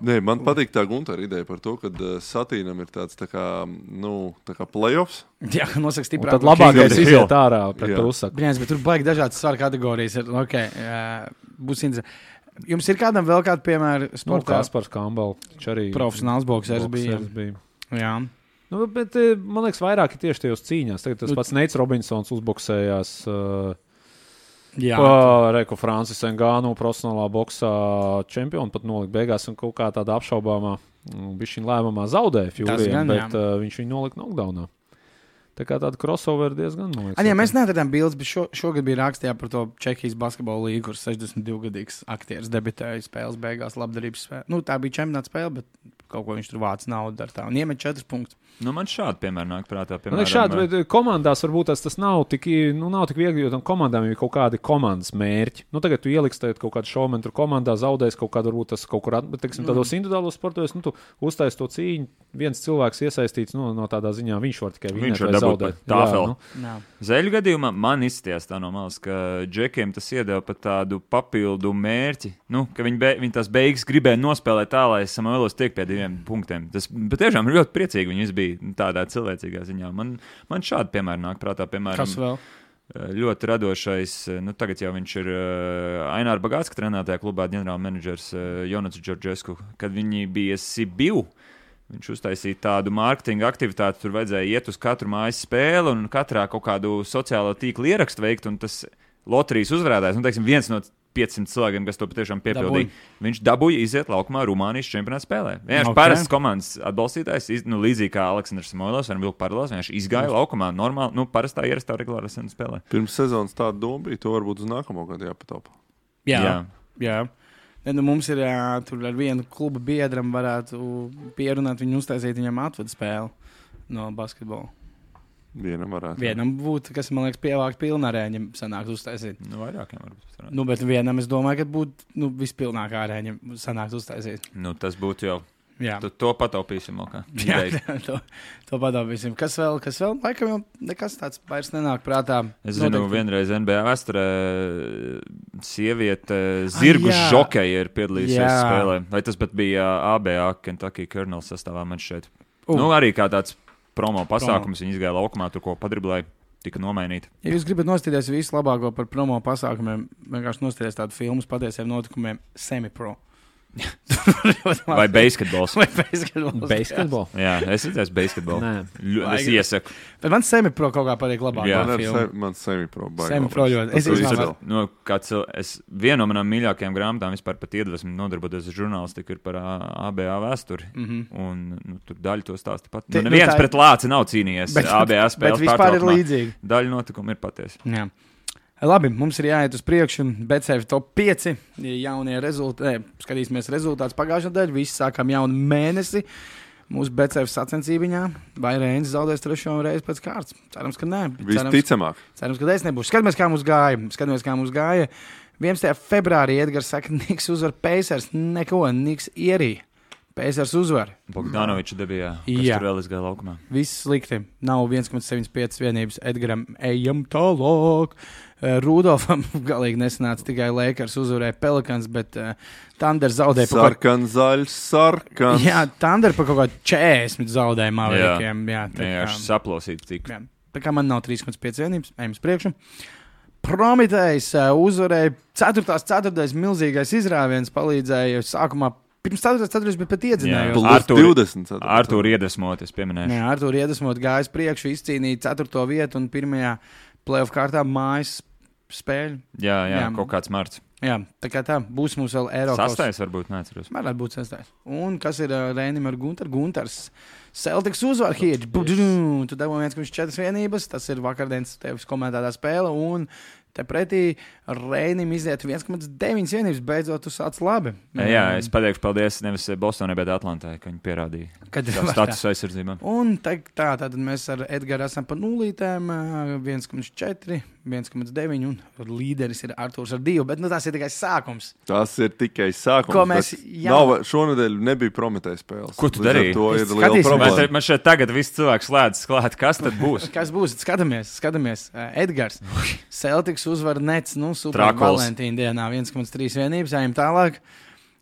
Nē, man patīk tā Guntara ideja par to, ka Satīnam ir tāds tā kā playoffs. Jā, nosaka stiprāk. Tad labākais iziet ārā pret Prusaku. Brīnās, bet tur baigi dažādas svaru kategorijas. Būs interesanti. Jums ir kādam vēl kādu piemēru sportā? Kaspars Kambal. Profesionāls boksers bija. Jā. Bet man liekas, vairāk ir tieši tajos cīņās. Tagad tas pats Neits Robinsons uzboksējās... Reku Francis Engānu profesionālā boksā čempionu pat nolika beigās un kaut kā tāda apšaubāmā bišķiņ lēmumā zaudēja Fjūrijam, bet viņš viņu nolika knockdownā. Tā kā tāda crossover diezgan nolika. Mēs neatradām bildes, bet šogad bija rakstījā par to Čehijas basketbola līgu, kur 62-gadīgs aktieris debitēja spēles beigās labdarības spēle. Tā bija čempionāta spēle, bet kaut ko viņš tur vāc naudu ar tā un iemet 4 punktus. Man šādi piemēri nāk prātā. Man šādi, bet komandās varbūt tas nav tik viegli, jo tam komandām ir kaut kādi komandas mērķi. Tagad tu ieliksi kaut kādu šovmenu tur komandā, zaudēs kaut kādu, varbūt tas kaut kur, bet, teiksim, tādos individuālos sportos, tu uztais to cīņu, viens cilvēks iesaistīts, no tādā ziņā viņš var tikai vinēt vai zaudēt. Zeļu gadījumā man izstījās tā no malas, ka džekiem tas iedeva pat tādu papildu mērķi, ka viņi tās beigas gribēja nospēlēt tā, lai Samuelos tiek pie 2 punktiem. Tas patiešām ir ļoti priecīgi, viņi bija tādā cilvēcīgā ziņā. Man šādi piemēri nāk prātā, piemēram. Kas vēl? Ļoti radošais, tagad jau viņš ir Aināra Bagātska trenētajā klubā ģenerāla menedžers Jonats Džordžesku, kad viņi bija Sibiu. Viņš uztaisīja tādu mārketinga aktivitāti, tur vajadzēja iet uz katru mājas spēli un katrā kaut kādu sociālo tīklu ierakstu veikt, un tas loterijas uzvarētājs, viens no 500 cilvēkiem, kas to patiešām piepildīja. Viņš dabūja iziet laukumā Rumānijas čempionāta spēlē. Vienkārši parasts komandas atbalstītājs, līdzīgi kā Aleksandrs Samoilovs, varam vilkt paralēlās, vienkārši izgāja laukumā normāli, parastā ierastā regulārā spēlē. Pirms sezonas tāda doma bija, to varbūt uz nākamo gadu jāpataupa. Jā. Mums ir tur ar vienu kluba biedram varētu pierunāt viņu uztaisīt viņam atvedu spēli no basketbola. Vienam būtu, kas, man liekas, pievākt pilnā arēņa sanākt uztaisīt. Vairākiem varbūt. Bet vienam es domāju, ka būtu vispilnākā arēņa sanākt uztaisīt. Tas būtu jau. Jā. To pataupīsim vēl kā. To pataupīsim. Kas vēl? Laikam jau nekas tāds vairs nenāk prātā. Es zinu, vienreiz NBA vēsturē sieviete zirgu žokeja ir piedalījusies spēlē. Vai tas pat bija ABA Kentucky Colonels sastāvā man šeit. Arī kā tāds promo pasākums, viņi izgāja laukumā, tur ko padriblēja. tika nomainīta. Ja jūs gribat nostīties visu labāko par promo pasākumiem, vienkārši nostīties tādu filmu patiesiem notikumiem semi-pro. Vai basketbols. Vai basketbols. Basketbol? Jā, es redzēju basketbolu. Es iesaku. Bet man semi-pro kaut kā patīk labāk. Jā, man semi-pro baigi. Semi-pro ļoti. Viena no manām mīļākajām grāmatām vispār pat iedvesmu nodarboties ar žurnālistiku ir par ABA vēsturi. Un tur daļa to stāsta pat. Neviens pret lāci nav cīnījies ABA spēles. Bet vispār ir līdzīgi. Daļa notikuma ir patiesa. Jā. Labi, mums ir jāiet uz priekšu. BCF top 5 jaunie rezultāti. Skatīsimies rezultātus pagājušajā nedēļā. Visi sākām jaunu mēnesi. Mūsu BCF sacensībiņā. Vai Reinis zaudēs 3. reizi pēc kārtas? Cerams, ka nē. Visticamāk. Cerams, ka es nebūšu. Skatāmies, kā mums gāja. 11. februārī Edgars saka, Niks uzvar Pacers. Neko, Niks ierīja. Pacers uzvar. Bogdanoviča debijā, kas tur vēl izgāja laukumā. Viss slikti. Nav 1,75 vienības Edgaram. Ejam tālāk. Rudolfam galīgi nesanāca, tikai Lakers uzvarēja Pelicans, bet Thunder zaudēja par sarkans, zaļs, sarkans. Jā, Thunder par kaut kādu 40 zaudēja Maverikiem. Jā, saplosīt cik. Jā. Tā kā man nav 3,5 vienības, ejam uz priekšu. Prometējs uzvarēja 4. milzīgais izrāviens, palīdzēja sākumā. Pirms 4. bet pat iedzinājos. Artūru iedvesmot, es pieminēšu. Jā, Artūru iedvesmot gājis priekšu, izcīnīja 4. vietu un pirmajā playoff kārtā mājas spēļu. Jā, kaut kāds marts. Jā, tā kā tā, būs mums vēl Eiropas. 6. varbūt, neatceros. Varētu būt 6. Un kas ir Reinim ar Guntars? Celtics uzvar Hedge. Tu dabūji 1,4 vienības, tas ir vakardienas tevis komentētā spēle, un te pretī Reinim iziet 1,9 vienības, beidzot tu sāc labi. Jā, es pateikšu paldies nevis Bostonai, bet Atlantai, ka viņi pierādīja status aizsardzībā. Un tad mēs ar Edgaru esam pa nulītēm, 1,4, 1,9 un līderis ir Artūrs ar 2, bet tas ir tikai sākums. Tas ir tikai sākums. Ko mēs šonedēļ nebija Prometējas spēles. Ko tu darīji? To ir liela problēma. Man šeit tagad viss cilvēks slēdz klāt. Kas tad būs? Kas būs? Skatāmies. Edgars. Celtics uzvar Nets, super Valentīna dienā 1,3 vienības, ejam tālāk.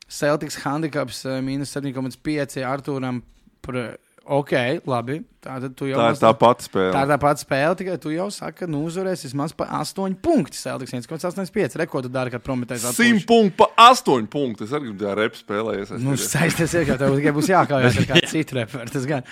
Celtics handicaps -7,5 Artūram par... Ok, labi. Tā ir tā pati spēle. Tā ir tā pati spēle, tikai tu jau saki, ka uzvarēs vismaz pa 8 punkti. Celtics 1,85. Rekordu dara, kad Prometējs atpūš. 100 punkti pa 8 punkti. Es arī gribu tā repu spēlējies. Saisties ir, ka tev tikai būs jākājās ar kādu citu reperu. Tas gan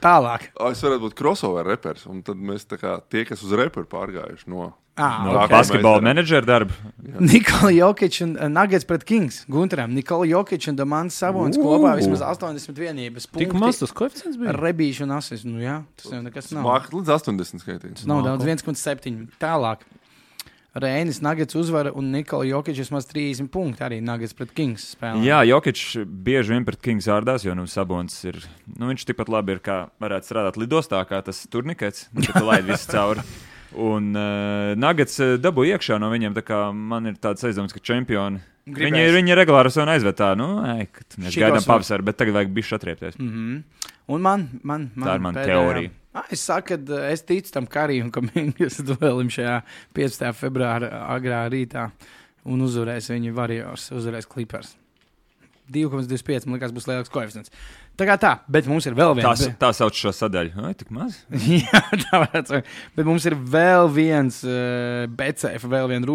tālāk. Es varētu būt crossover repers, un tad mēs tā kā tie, kas uz reperu pārgājuši no basketbola menedžera darba. Nikola Jokic un Nuggets pret Kings. Gunteram, Nikola Jokic un Domantas Sabonis kopā vismaz 80 vienības punkti. Tik maz tas koeficients bija? Rebīši un asis. Tas jau nekas nav. Mākat līdz 80 skaitīts. Nav daudz, 1,7. Tālāk. Reinis Nuggets uzvara un Nikola Jokic vismaz 30 punkti arī Nuggets pret Kings spēlē. Jā, Jokic bieži vien pret Kings ārdās, jo Sabonis ir, viņš tikpat labi ir, kā varētu strādāt lidostā, kā tas turnikets, kad laid visu cauri. Un Nuggets dabū iekšā no viņiem, tā kā man ir tāds aizdoms, ka čempioni. Viņi regulāri un aizved tā, mēs gaidām pavasaru, bet tagad vajag bišķi atriepties. Un man tā ir mana teorija. Es saku, ka es ticu tam Karijam, ka mēs duelim šajā 15. februāra agrā rītā un uzvarēs viņi Warriors, uzvarēs Clippers. 2,25, man liekas, būs lielāks koeficients. Tā kā tā, bet mums ir vēl viens. Tā sauc šo sadaļu. Ai, tik maz? Jā, tā varētu būt. Bet mums ir vēl viens BCF, vēl viena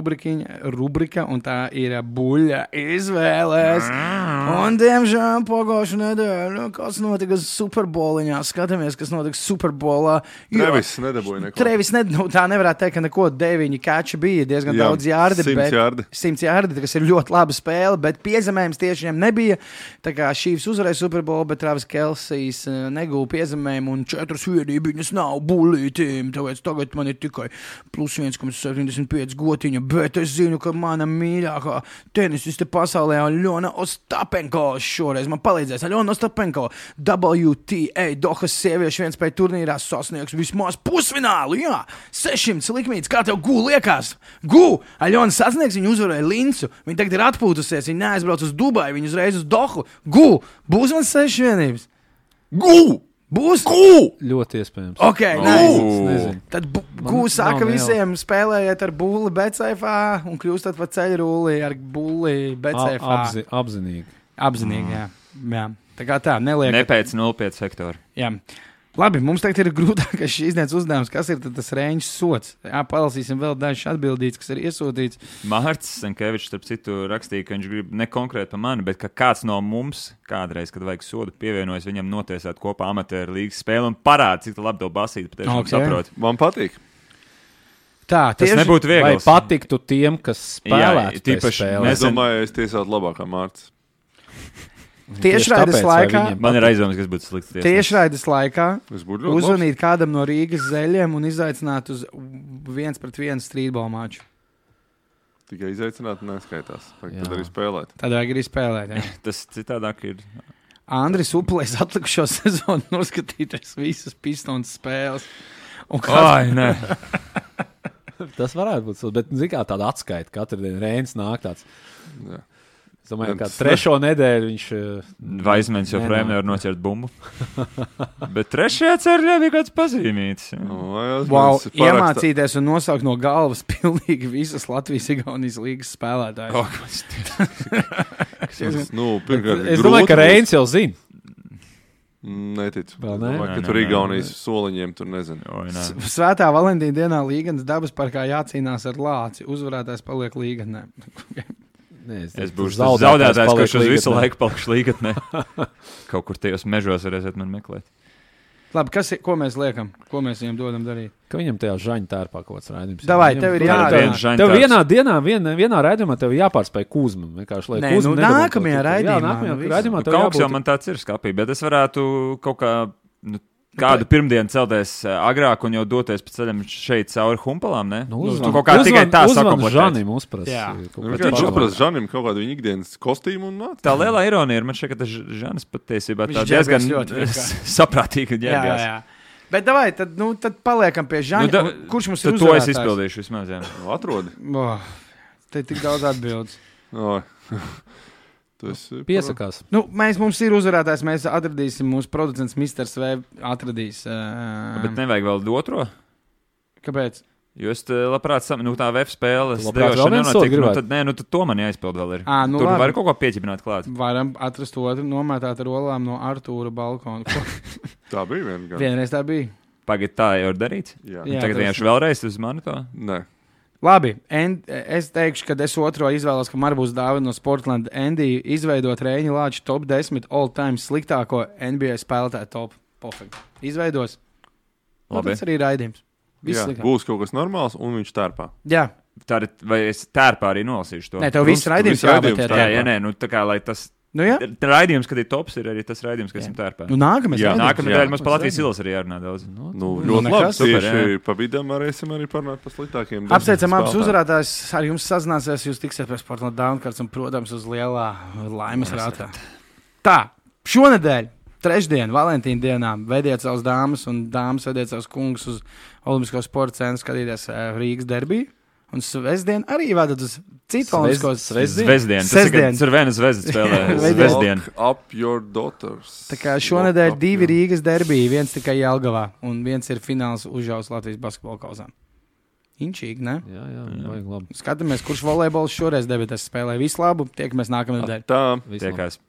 rubrika, un tā ir buļļa izvēles. Un, diemžēl, pagājušā nedēļa, kas notika Superboliņā. Skatāmies, kas notika Superbolā. Trevis nedabūja neko. Trevis tā nevarētu teikt, ka neko 9 kači bija. Diezgan daudz jārdi. 100 jārdi, kas ir ļoti laba spēle, bet piezemējums tieši viņam nebija. Tā kā Chiefs uzvarēja Superbolu, bet Travis Kelsijs negūja piezemējumu un 4 vienības nav bulītīm, tāpēc tagad man ir tikai plus 1,75 gotiņa, bet es zinu, ka mana mīļākā tenisiste pasaulē Aļona Ostapenko šoreiz man palīdzēs. Aļona Ostapenko WTA Dohas sieviešu vienspēju turnīrā sasniegs vismaz pusfinālu, jā, 600 likmītes, kā tev liekas? Aļona sasniegs, viņa uzvarēja Lincu, viņa tagad ir atpūtusies, viņa neaizbrauc uz Dubaju, viņa uzreiz uz Dohu, būs man 6 vienības. Būs? Ļoti iespējams. Ok, nezinu. Tad saka visiem spēlējiet ar bulli BCFā un kļūstat pa ceļrulli ar bulli BCFā. Apzinīgi. Apzinīgi, jā. Tā kā tā, neliek. Ne pēc 0,5 hektāru. Jā. Labi, mums tagad ir grūtākais šīs dienas uzdevums. Kas ir tas Reņģis sots? Jā, palasīsim vēl dažas atbildītas, kas ir iesūtīts. Mārcis Sankevičs, starp citu, rakstīja, ka viņš grib ne konkrēti par mani, bet ka kāds no mums kādreiz, kad vajag sodu, pievienojas viņam notiesāt kopā amatieru līgas spēli un parāda, cik labi to basīt. Patiešām saprot. Man patīk. Tā, Tas nebūtu viegli. Vai patiktu tiem, kas spēlētu tīpaši spēlē? Es domāju, es tiesātu labākā Mārcis. Tiešraides laikā. Man ir aizdomas, kas būtu slikts tiesnes. Tiešraides laikā uzvanīt labs. kādam no Rīgas zeļiem un izaicināt uz 1-1 strīdbola maču. Tikai izaicināt neskaitās. Tad arī spēlēt. Tad vajag arī spēlēt. Jā. Tas citādāk ir. Andris Upulējs atlikušo sezonu noskatīties visas Pistons spēles. Ai, nē. Tas varētu būt, bet zin kā tāda atskaita. Katru dienu Rēns nāk tāds. Jā. Es domāju, ka trešo nedēļu viņš... Vaismens joprojām nevar noķert bumbu. Bet trešajā cerļā bija kāds pazīmīts. Wow, iemācīties un nosaukt no galvas pilnīgi visas Latvijas-Igaunijas līgas spēlētājus. Es domāju, ka Reins jau zina. Neticu. Vai ka tur Igaunijas soliņiem tur nezinu. Svētā Valentīna dienā Līganas dabas parkā jācīnās ar lāci. Uzvarētājs paliek Līganē. Es būšu zaudētājs, kurš uz visu laiku palikšu Līgatnē. Kaut kur tajos mežos varēsiet man meklēt. Labi, ko mēs liekam? Ko mēs viņam dodam darīt? Ka viņam tajā žaņa tērpā kaut kāds raidījums. Davai, tev ir jādara. Tev vienā dienā, vienā raidījumā tev jāpārspēj Kuzma. Nē, nākamajā raidījumā. Kaut jau man tāds ir skapī, bet es varētu kaut kā... Kādu pirmdienu celties agrāk un jau doties pa ceļam šeit cauri humpalām, ne? Tu kaut kā tikai tā sakomplektēt. Žanim uzprast. Viņš uzprast Žanim kaut kādu viņa ikdienas kostīmu un nāc. Tā lielā ironija ir, man šķiet, ka tas Žanis patiesībā tā diezgan saprātīgi ģērbjās. Jā. Bet davai, tad paliekam pie Žaņa. Kurš mums ir uzvarētājs? To es izpildīšu vismaz, jā. Atrodi. Te tik daudz atbildes. Piesakās. Mums ir uzvarētājs, mēs atradīsim, mūsu producents Mr. Svev atradīs. Bet nevajag vēl otro? Kāpēc? Jo es labprāt, tā web spēles tad to man jāizpild vēl ir. Tur var kaut ko pieķipināt klāt. Varam atrast otru nomētāt ar olām no Artūra balkona. Tā bija viena. Vienreiz tā bija. Pagad tā jau ir darīts? Jā. Tagad vienkārši vēlreiz uz mani to? Nē. Labi, es teikšu, ka es otro izvēlos, ka man būs dāvana no Sportland Andy izveidot Reņģa Lāča top 10 all-time sliktāko NBA spēlētāju top. Pofekt. Izveidos. Labi. Tas arī raidījums. Jā, būs kaut kas normāls un viņš tērpā. Jā. Vai es tērpā arī nolasīšu to? Nē, tev viss raidījums jābūt tērpā. Jā, nē, tā kā, lai tas... Raidījums, kad ir tops, ir arī tas raidījums, kas esam tērpā. Nākamajā mums pa Latvijas ilas arī jārunā daudz. Ļoti labi. Tieši pa vidam varēsim arī parunāt par sliktākiem. Apsveicam abus uzvarētājus. Ar jums sazināsies, jūs tiksiet pie Sportland Downcards un, protams, uz lielā laimes rātā. Tā, šonedēļ, trešdien, Valentīna dienā, vediet savus dāmas un dāmas vediet savus kungus uz Olimpisko sporta centru skatīties Rīgas derbiju. Un svētdien arī vadat uz citu olimpiskos svētdien. Tas ir viena zvezda spēlē. Svētdien. Up your daughters. Tā kā šonedēļ 2 Rīgas derbiji, viens tikai Jelgavā un viens ir fināls Užaus Latvijas basketbola kauzām. Inčīgi, ne? Jā, vajag labi. Skatāmies, kurš volejbols šoreiz debitēs spēlē. Visu labu, tiekamies nākamnedēļ. Tā. Tiekās.